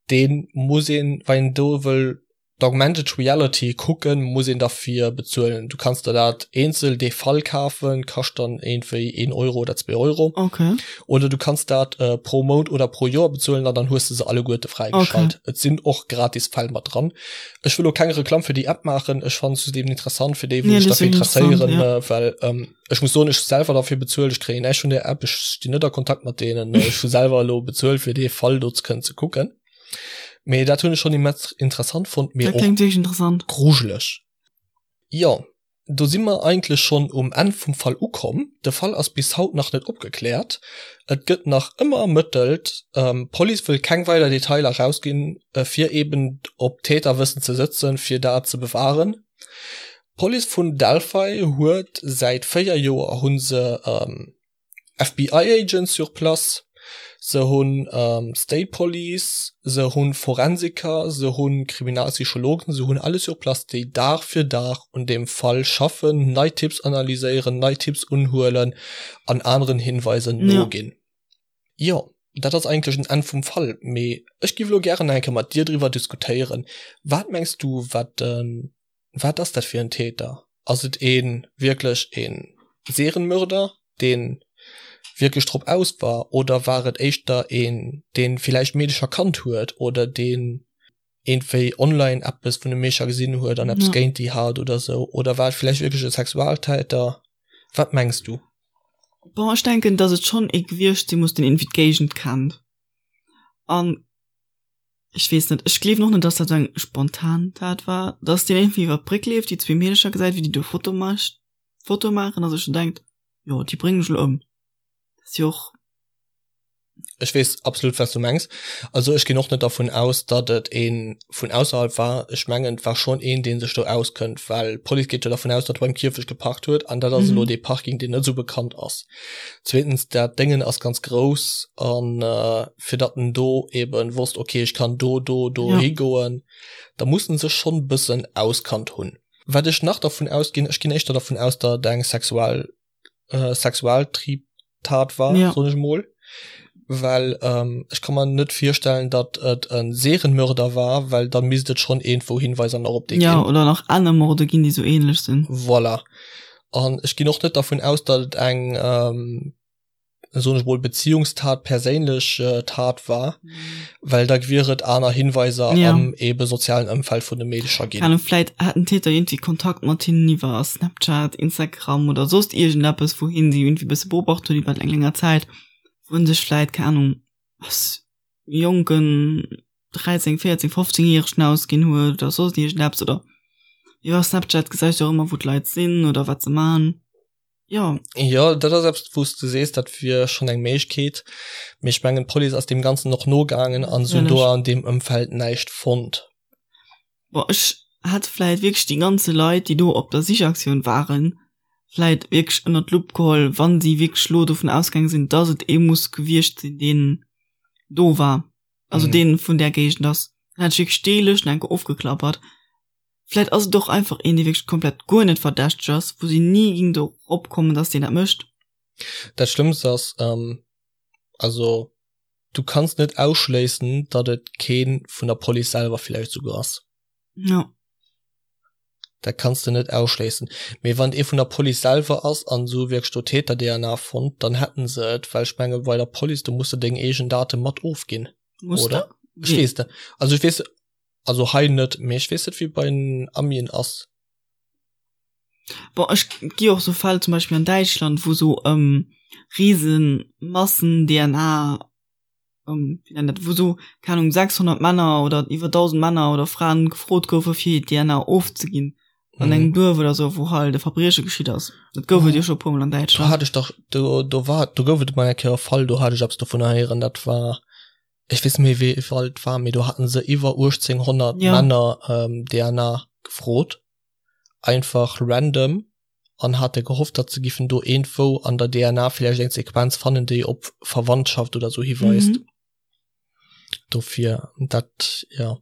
dee muss een, wann een do wëll. D'Augmented Reality kucken muss een derfir bezuelen. Du kanns der dat eenzel dee Fall kafen, kascht dann iergendwéi een Euro oder zwee Euro. Okay. Oder du kanns dat pro Mount oder pro Joer bezuelen an dann hues de se alleguerte fräigeschalt. Okay. Et sinn och gratis Fäll mat dran. Ech wëll lo keng Reklamm fir déi App maachen, ech fannen se just eben interessant fir déi wou sech derfir interesséieren, ja. well ech muss soen, ech hu selwer derfir bezuelt, ech kréien näischt vun där App, ech stinn net a Kontakt mat deenen, ech hu selwer elo bezuelt fir dee Fall do ze kënnen ze kucken. Mee dat hunn ech schonn immens interessant fonnt, mee och interessant. grujeleg. Jo, do si mer eigentlech schonn um Enn vum Fall ukomm. De Fall ass bis haut nach net opgekläert. Et gëtt nach ëmmer ermëttelt. D'Police wëll keng weider Detailer erausginn, fir eben op Täterwëssen ze sëtzen, fir dat ze bewahren. D'Police vun Delphi huet säit 4 Joer hu se FBI Agents sur place, se hunn State Police, se hunn Forensiker, se hunn Kriminalpsychologen, se hunn alles sur place, déi Dag fir Dag un deem Fall schaffen, nei Tipps analyséieren, nei Tipps unhuelen an aneren Hinweisen noginn. Jo, dat ass eigentlech en Enn vum Fall, mee ech giff elo gären nach eng Kéier mat dir driwwer diskutéieren. Wat mengs du, wat de Wat ass dat fir en Täter? Ass et ee wierklech e Serienmörder, dee wierklech drop aus war, oder war et éischter een, dee villäicht Meedecher kannt huet oder deen iergendwéi online eppes vun de Meecher gesinn huet an eppes géint déi hat oder sou? Oder war et villäicht wierklech e Sexualtäter? Wat mengs du? Bon, ech denken, datt et schonn ee gewiescht si muss, deen iergendwéi d'Géigend kennt an Ech weess net, ech gleewen och net, dass dat sou eng spontan Tat war, dass deen irgendwie iwwer d'Bréck leeft, déi zwee Meedercher gesäit, wéi déi do Foto mecht, Foto maachen a sech dann denkt, jo, déi bréngen ech elo ëm. Dat ass jo och. Ech weess absolut, wat s du mengs. Also ech ginn och net dervun aus, datt et ee vun ausserhalb war. Ech mengen, et war schonn een, dee sech do auskënnt, well d'Police geet jo dervun aus, datt e beim Kierfecht geparkt huet an dat ass elo dee Parking, deen net esou bekannt ass. Zweetens, dat Déngen ass ganz grouss an fir datt en do eben wosst, okay, ech kann do, do, do ja. higoen, da muss en sech schonn bëssen auskannt hunn. Wat ech nach dervun ausginn, ech ginn éischter dervun aus, datt et eng sexual äh, Sexualtriebtat war, ja. soen ech mol. Well ähm, ech kann mer net virstellen, datt et en Serienmörder war, well da misst et schonn iergendwou Hinweiser nach op dee ja, ginn. Ja, oder nach aner Morde ginn, déi sou ähnlech sinn. Voilà. An ech ginn och net dervun aus, datt et eng, soen ech mol, Beziehungstat, perséinlech Tat war, well da wier et aner Hinweiser am ebe sozialen Ëmfeld vun de Meedecher ginn. Keine Ahnung, vläit hat den Täter iergendwéi Kontakt mat hinnen iwwer Snapchat, Instagram oder soss iergendeppes, wou hien si iergendwéi e bësse beobacht huet iwwer eng länger Zäit, wou en sech vläit, keng Ahnung, als jonken 13, 14, 15 Järegen ausginn huet oder soss iergendeppes oder iwwer Snapchat gesäis du och ëmmer wou d'Leit sinn oder wat se man. Jo. Jo, dat ass eppes wou s de sees, dat wier schonn eng Méiglechkeet, mee ech mengen d'Police ass deem Ganzen och nogaangen an se hunn do an deem Ëmfeld näischt fonnt. Bon, ech hätt vläit wierklech déi ganze Leit, déi do op der Sichaktioun waren, vläit wierklech ënnert d'Lupp geholl, wann si wierklech lo dovun ausgaange sinn, dass et ee muss gewiescht sinn, deen do war. also mm. den vun der Gegend ass dann hätt ech wierklech déi Lëscht enke ofgeklappert. Vläit ass et och einfach een, dee wierklech komplett guer net verdächteg ass, wou si ni ging dorop kommen, dass deen dat mécht. Dat Schlëmmst ass, ähm, also du kanns net ausschléissen, datt et kee vun der Police selwer villäicht souguer ass. Ja. Dat kanns de net ausschléissen. Mee wann et ee vun der Police selwer ass an se hu wierklech do Täter-DNA fonnt, dann hätten se et, well ech menge bei der Police, do muss de deng eegen Date mat ofginn. Muss oder? De? Ech weess net. Also ech weess, also hei net, mee ech weess net wéi bei den Amien ass. Bon, ech gi och sou Fäll zum Beispill an Däitschland, wou sou ähm, riesen Massen-DNA ähm, wéi nennt dat, wou sou, keng Ahnung, 600 Männer oder iwwer 1000 Männer oder Fraen gefrot goufe fir hir DNA ofzeginn an engem Duerf oder sou, wou halt e Verbrieche geschitt ass. Dat gouf et jo scho e puermol an Do Däitschland. hat ech dach, do, do war, do gouf et emol eng Kéier e Fall, do hat ech eppes dovunner héieren, dat war, ech weess net méi wéi e Fall et war, mee do haten se iwwer 1800 Ja. Männer ähm, DNA gefrot, einfach random. an hate gehofft, datt se giffen do iergendwou an der DNA villäicht eng Sequenz fannen, déi op Verwandtschaft oder sou hiweist. Mhm. Dofir dat ja.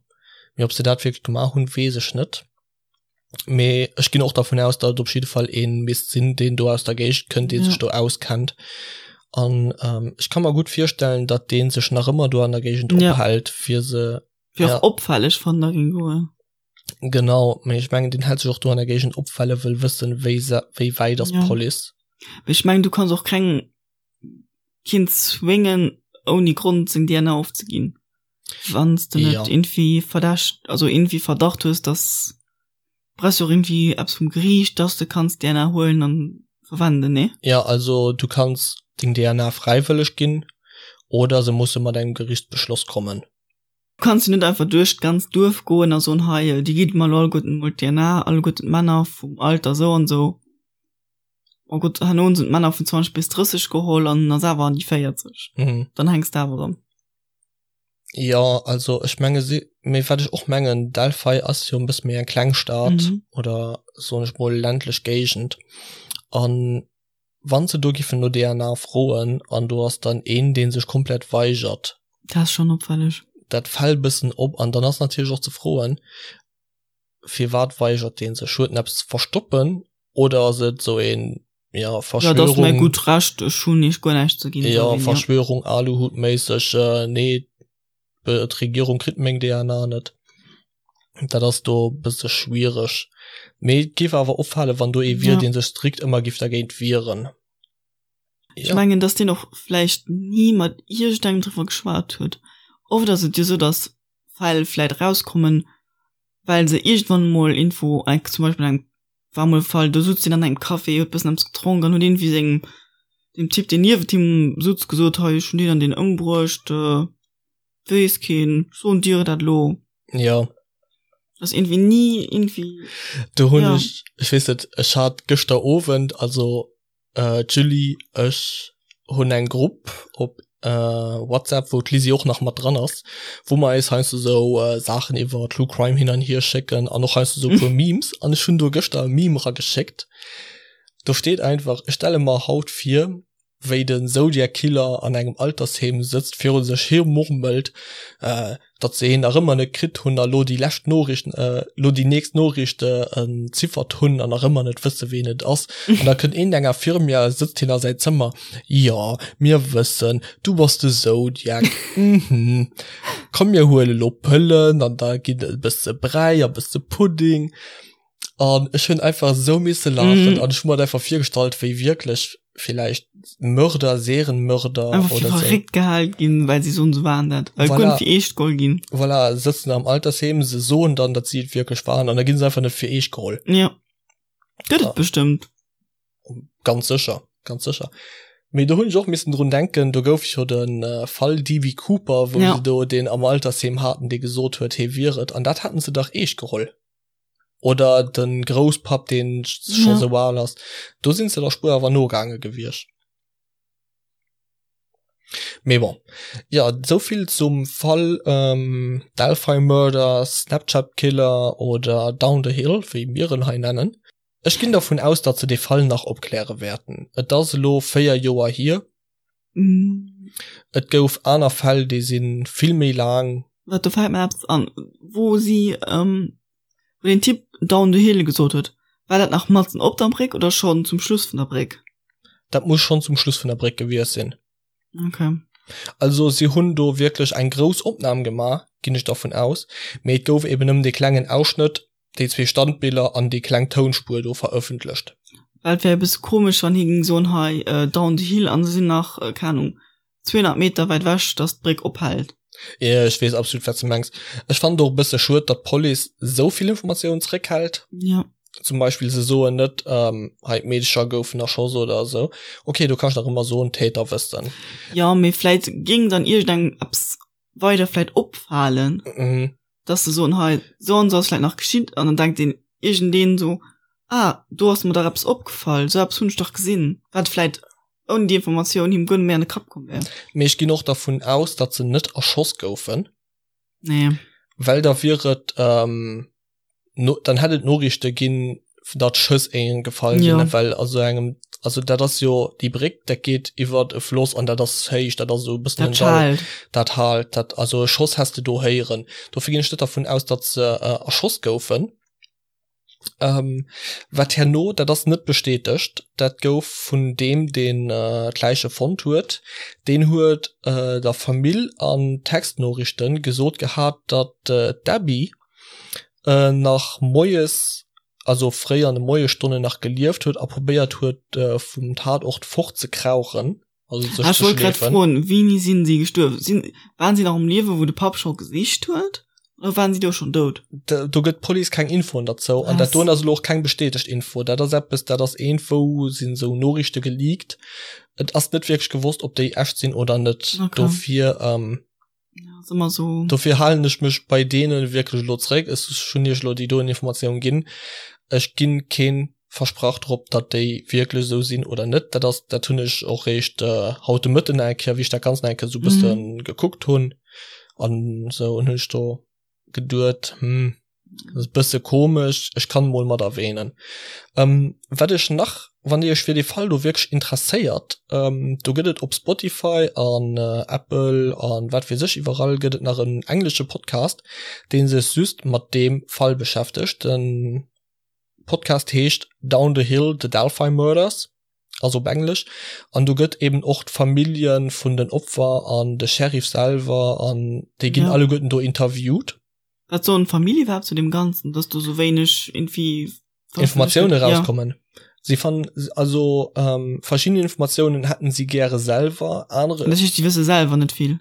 Mee ob se dat wierklech gemaach hunn, weess ech net. Mee ech ginn och dervun aus, datt et op jidde Fall ee misst sinn, deen do aus der Géigend kënnt, dee sech do auskennt. An ähm, ech ka mer gutt virstellen, datt dee sech nach ëmmer do an der Géigend Ja. ophält, fir se Wier ja. och opfälleg, wann der géing goen. Genau, mee ech mengen deen hält sech och do an der Géigend op, well e wëll wëssen, wéi se, wéi wäit ass Ja. d'Police. Mee ech mengen du kanns och keng keen zwéngen ouni Grond seng DNA ofzeginn. Wann s de net Ja. irgendwie Verdächt, also irgendwie Verdacht hues, dass brauchst du och irgendwie eppes vum Geriicht, dass de kanns DNA huelen an verwenden, nee? Ja, also du kanns deng DNA fräiwëlleg ginn oder se musse mat engem Gerichtsbeschloss kommen. Du kanns jo net einfach duerch d'ganzt Duerf goen a soen, hei, dir gitt mer elo alleguerten emol d'DNA, alleguerten d'Männer vum Alter sou an sou. Oh Gott, herno hunn se d'Männer vun 20 bis 30 geholl an en ass awer an déi 40. Mhm. Dann hänks de awer erëm. Jo, also ech menge si, mee wat ech och mengen, Delphi ass jo e bësse méi eng kleng Stad Mhm. oder soen ech mol ländlech Géigend an wann se do giffen no DNA froen an do ass dann een dee sech komplett weigert. Dat ass schonn opfälleg. Dat fält bëssen op an dann ass natierlech och ze froen, firwat weigert dee sech? Huet en eppes ze verstoppen oder ass et sou een ja Ja, dat ass mäi Verschwörung gutt Recht, ech hunn iech guer näischt ze ginn, ja sou een, ja. Verschwörung Aluhutméisseg äh, nee d'Regierung kritt meng DNA net. Dat ass do e bësse schwiereg. Mee et géif awer opfalen, wann do ee wier, Ja. dee sech strikt ëmmer géif dergéint wieren. Ech Ja. mengen, dass deen och vläicht ni mat iergendengem driwwer geschwat huet. Oft ass et jo sou, dass Fäll vläicht erauskommen, well se iergendwann emol Info, zum Beispill an engem war mol e Fall, do sutz deen an engem Café, huet bëssen eppes gedronk an huet iergendwéi sengem, dem Typ, deen niewent him sutz, gesot, hei, ech hunn deen an deen ëmbruecht, weess keen, ech soen dir dat elo. Jo. Ass iergendwéi ni iergendwéi. Do hunn Ja. ech, ech weess net, ech hat gëschter Owend, also D'Julie, ech hunn eng Grupp op WhatsApp, wou d'Lisi och nach mat dran ass, wou mer eis heiansdo sou Saachen iwwer True Crime hin an hier schécken an och heiansdo sou e puer Memes. An ech hunn do gëschter e Meme erageschéckt, do steet einfach, Ech stelle mer haut vir, wéi de Zodiac Killer an engem Altersheem sëtzt, viru sech hi murmelt, datt se hien nach ëmmer net kritt hunn a lo déi lescht Noriicht, lo déi nächst Noriicht entziffert hunn an nach ëmmer net wësse ween et ass. An da kënnt een enger Firmia, sëtzt hien a säi Zëmmer, jo mir wëssen, du bass de Zodiac, mhm, komm mir huele lo Pëllen an da ginn et e bësse Bräi a bësse Pudding. An ech hunn einfach esou misse laachen an ech hu mer et einfach virgestallt, wéi wierklech villäicht Mörder, Serienmörder Einfach fir oder sou. verréckt gehal ginn, well si soen, se waren dat. Well Voilà. guer net fir eescht geholl ginn. Voilà, sëtzen am Altersheem, se soen dann, datt si et wierklech waren an da ginn se einfach net fir eescht geholl. Ja. Gëtt Ja. et bestëmmt. Ganz sécher, ganz sécher. Mee do hunn ech och missen drun denken, do gouf jo de Fall DB Cooper, wou Ja. se do deen am Altersheem haten, dee gesot huet, hie wier et. An dat haten se dach eescht geholl. Oder den Grousspapp deen scho Ja. sou al ass. Do sinn se der Spuer awer nogaange gewiescht. Mee bon. Jo, souvill zum Fall ähm, Delphi Murder, Snapchat Killer oder Down the Hill, wéi mir en hei nennen. Ech ginn dervun aus, datt se dee Fall nach opkläre wäerten. Et ass elo 4 Joer hier. Mm. Et gouf aner Fäll, déi si vill méi laang. Wat, do fält mer eppes an, wou si, ähm, wou den Typ down the hill gesot huet, war dat nach matzen op der Bréck oder schonn zum Schluss vun der Bréck? Dat muss schonn zum Schluss vun der Bréck gewiescht sinn. Okay. Also si hunn do wierklech eng grouss Opnam gemaach, ginn ech dervun aus, mee et gouf eben nëmmen dee klengen Ausschnëtt déi zwee Standbiller an déi kleng Tounspuer do verëffentlecht. Well et wär e bësse komesch, wann hie géing soen, hei down the hill an se sinn nach, keng Ahnung, 200 Meter wäit ewech, datt d'Bréck ophält. Jo, ech weess absolut, wat s de mengs. Ech fannen et och e bësse schued, datt d'Police esou vill Informatiounen zeréckhält. Jo. Zum Beispill, se soen net, hei d'Meedecher goufen erschoss oder esou. Ok, do kanns de nach ëmmer soen, d'Täter wëssten. Jo, mee vläit géing dann iergendengem eppes weider vläit opfalen. Mhm. dass se soen, hei, sou an sou ass vläit nach geschitt, an dann denkt een iergendeen sou, ah, do ass mer dach eppes opgefall, sou eppes hunn ech dach gesinn, wat vläit ouni déi Informatioun him guer net méi an de Kapp komm wär. Mee ech ginn och dervun aus, datt se net erschoss goufen. Nee. Well da wier et, no, dann hätt et Noriichte ginn, datt Schëss éingen gefall sinn, Ja. well a sou engem, also dat ass jo déi Bréck, dat geet iwwert e Floss an dat ass héich, dat ass esou e bëssen Dat en Dall, schaalt. dat haalt, dat, also e Schoss häss de do héieren. Dofir ginn ech net dervun aus, datt se erschoss goufen. Ähm, wat herno, dat ass net bestätegt, dat gouf vun deem, deen d'Läiche fonnt huet, deen huet der Famill an Textnoriichten gesot gehat, datt d'Abby. nach moies, also fréi an de Moiesstonnen nach gelieft huet a probéiert huet vum Tatort fortzekrauchen, also sech ze schleefen. Ech wollt grad froen, wéini sinn si gestuerwen? Sinn, waren si nach um Liewen, wou de Papp scho gesicht huet, oder waren si do schonn dout? Do gëtt d'Police keng Infoen derzou an dat doen ass elo och keng bestätegt Info. Dat ass eppes, dat ass iergendwou sinn esou Noriichte geleakt. Et ass net wierklech gewosst, ob déi echt sinn oder net. Dofir. Ja, ass ëmmer sou. Dofir halen ech mech bei deene wierklech elo zréck. Ech hunn iech elo déi doen Informatioun ginn. Ech ginn keen Versprach drop, datt déi wierklech esou sinn oder net. Dat ass, dat hunn ech och réischt haut de Mëtten eng Kéier, wéi ech dat Ganzt nach eng Kéier esou e bësse gekuckt hunn an esou, hunn ech do geduet, hm, Das bësse komesch, ech kann mol mat erwähnen. Ähm, wat ech nach, wann Dir Iech fir dee Fall do wierklech interesséiert, ähm, do gëtt et op Spotify an äh, Apple an wat weess ech iwwerall gëtt et nach en englesche Podcast, dee sech just mat deem Fall beschäftegt. Den Podcast heescht Down the Hill, The Delphi Murders, also op Englesch. An do gëtt eben och d'Famillje vun den Opfer an de Sheriff selwer an déi ginn ja. alleguerten do interviewt. Wat soen d'Famill iwwerhaapt zu deem Ganzen, dass do sou wéineg irgendwie Informatioune rauskommen? Ja. Sie fannen also ähm, verschiedene Informatiounen hätten sie gäre selwer, anere. Dat heescht, sie wësse selwer net vill.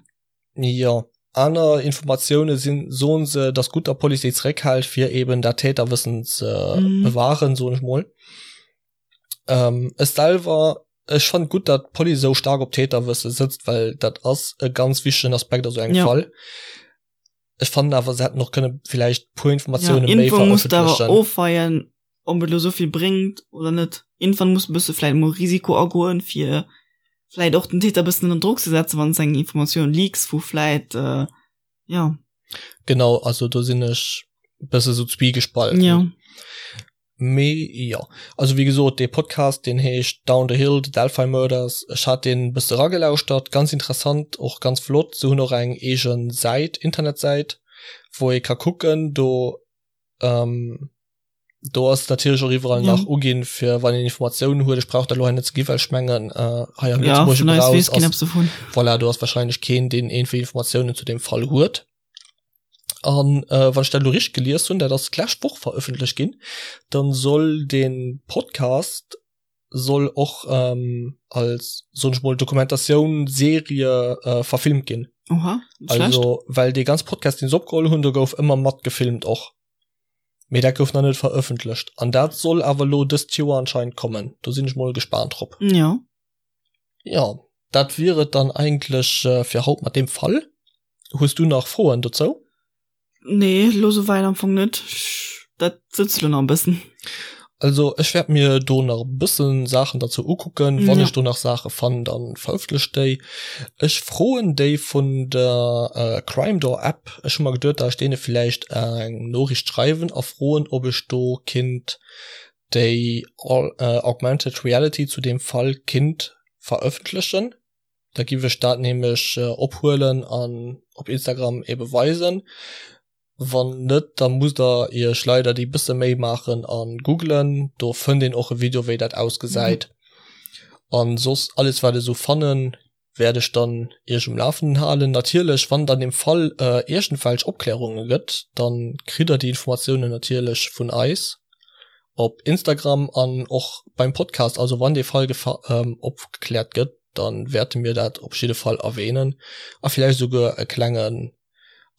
Ja, aner Informatioune sinn, soen se, dass gutt der Police déi zeréckhält, fir eben dat Täterwëssen ze mhm. bewahren, soen ech mol. Ähm, ech selwer, ech fand gutt, dat d'Police sou stark op Täterwësse sëtzt, well dat ass e ganz wichtegen Aspekt a sou engem ja. Fall. Ech fannen awer se hätten och kënne villäicht puer Informatioune ja, méi verëffentlechen. Ofweien ob et lo souvill bréngt oder net. Irgendwann muss bësse vläit mol Risiko agoen fir vläit och den Täter bëssen ënner Drock ze setzen, wann s eng Informatioun leaks wou vläit äh, ja. Genau, also do sinn ech bësse sou zwiegespalten. Ja. Mee jo, also wéi gesot, dee Podcast deen heescht Down the Hill, The Delphi Murders. Ech hat deen e bësse eragelauschtert, ganz interessant, och ganz flott. Se hunn och eng eege Säit, Internetsäit, wou ee ka kucken. Do do ass natierlech och iwwerall nach uginn, fir wann een Informatiounen huet. Ech brauch dat elo hei net ze ginn, well ech mengen hei am Lëtzebuergesche Brauch ass, voilà, do ass warscheinlech keen, deen iergendwéi Informatiounen zu deem Fall huet. An äh, wann ech dat elo richteg gelies hunn, dat ass d'lescht Woch verëffentlecht ginn, dann soll den Podcast soll och ähm, als soen ech mol Dokumentatioun Serie äh, verfilmt ginn. Oha, net schlecht. Also well dee ganz Podcast deen se opgeholl hunn, do gouf ëmmer mat gefilmt och. Mee dat gouf nach net verëffentlecht an dat soll awer elo dëst Joer anscheinend kommen. Do sinn ech mol gespaant drop. Ja. Ja, dat wier et dann eigentlech äh, fir haut mat deem Fall. Hues du nach Froen dozou? Nee, lo souwäit am Fong net. Dat sëtzt lo nach e bëssen. Also ech wäert mir do nach e bëssen Saachen derzou ukucken. Wann ech do nach Saache fannen, dann verëffentlech déi. Ech froen déi vun der Crime Door App. Ech hu mer geduet, dat ech deene villäicht eng Noriicht schreiwen a froen, ob ech do kinnt déi Augmented Reality zu deem Fall kinnt verëffentlechen. Da giff ech dat nämlech ophuelen an op Instagram ebe weisen. Wann net, da musst der iech leider déi bësse Méi maachen a googlen. Do fënnt een och e Video wéi dat ausgesäit. An soss alles wat ech sou fannen, wäert ech dann iech um Lafenden halen. Natierlech wann et an dem Fall iergendwelch Opklärunge gëtt, dann kritt der déi Informatiounen natierlech vun eis. Op Instagram an och beim Podcast. Also wann dee Fall opgekläert gëtt, dann wäerte mir dat op jidde Fall erwähnen a villäicht esouguer e klengen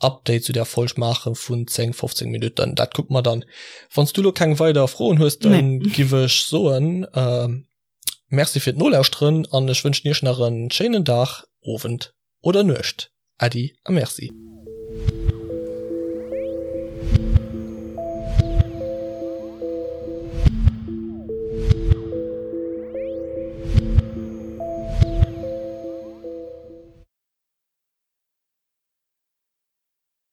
Update zu där Folg maache vun 10, 15 Minutten. Dat kucke mer dann. Wann s du elo keng weider Froen hues, dann nee. giff ech soen äh, Merci fir d'Nolauschteren an ech wënschen iech nach en schéinen Dag, Owend oder Nuecht. Äddi a Merci.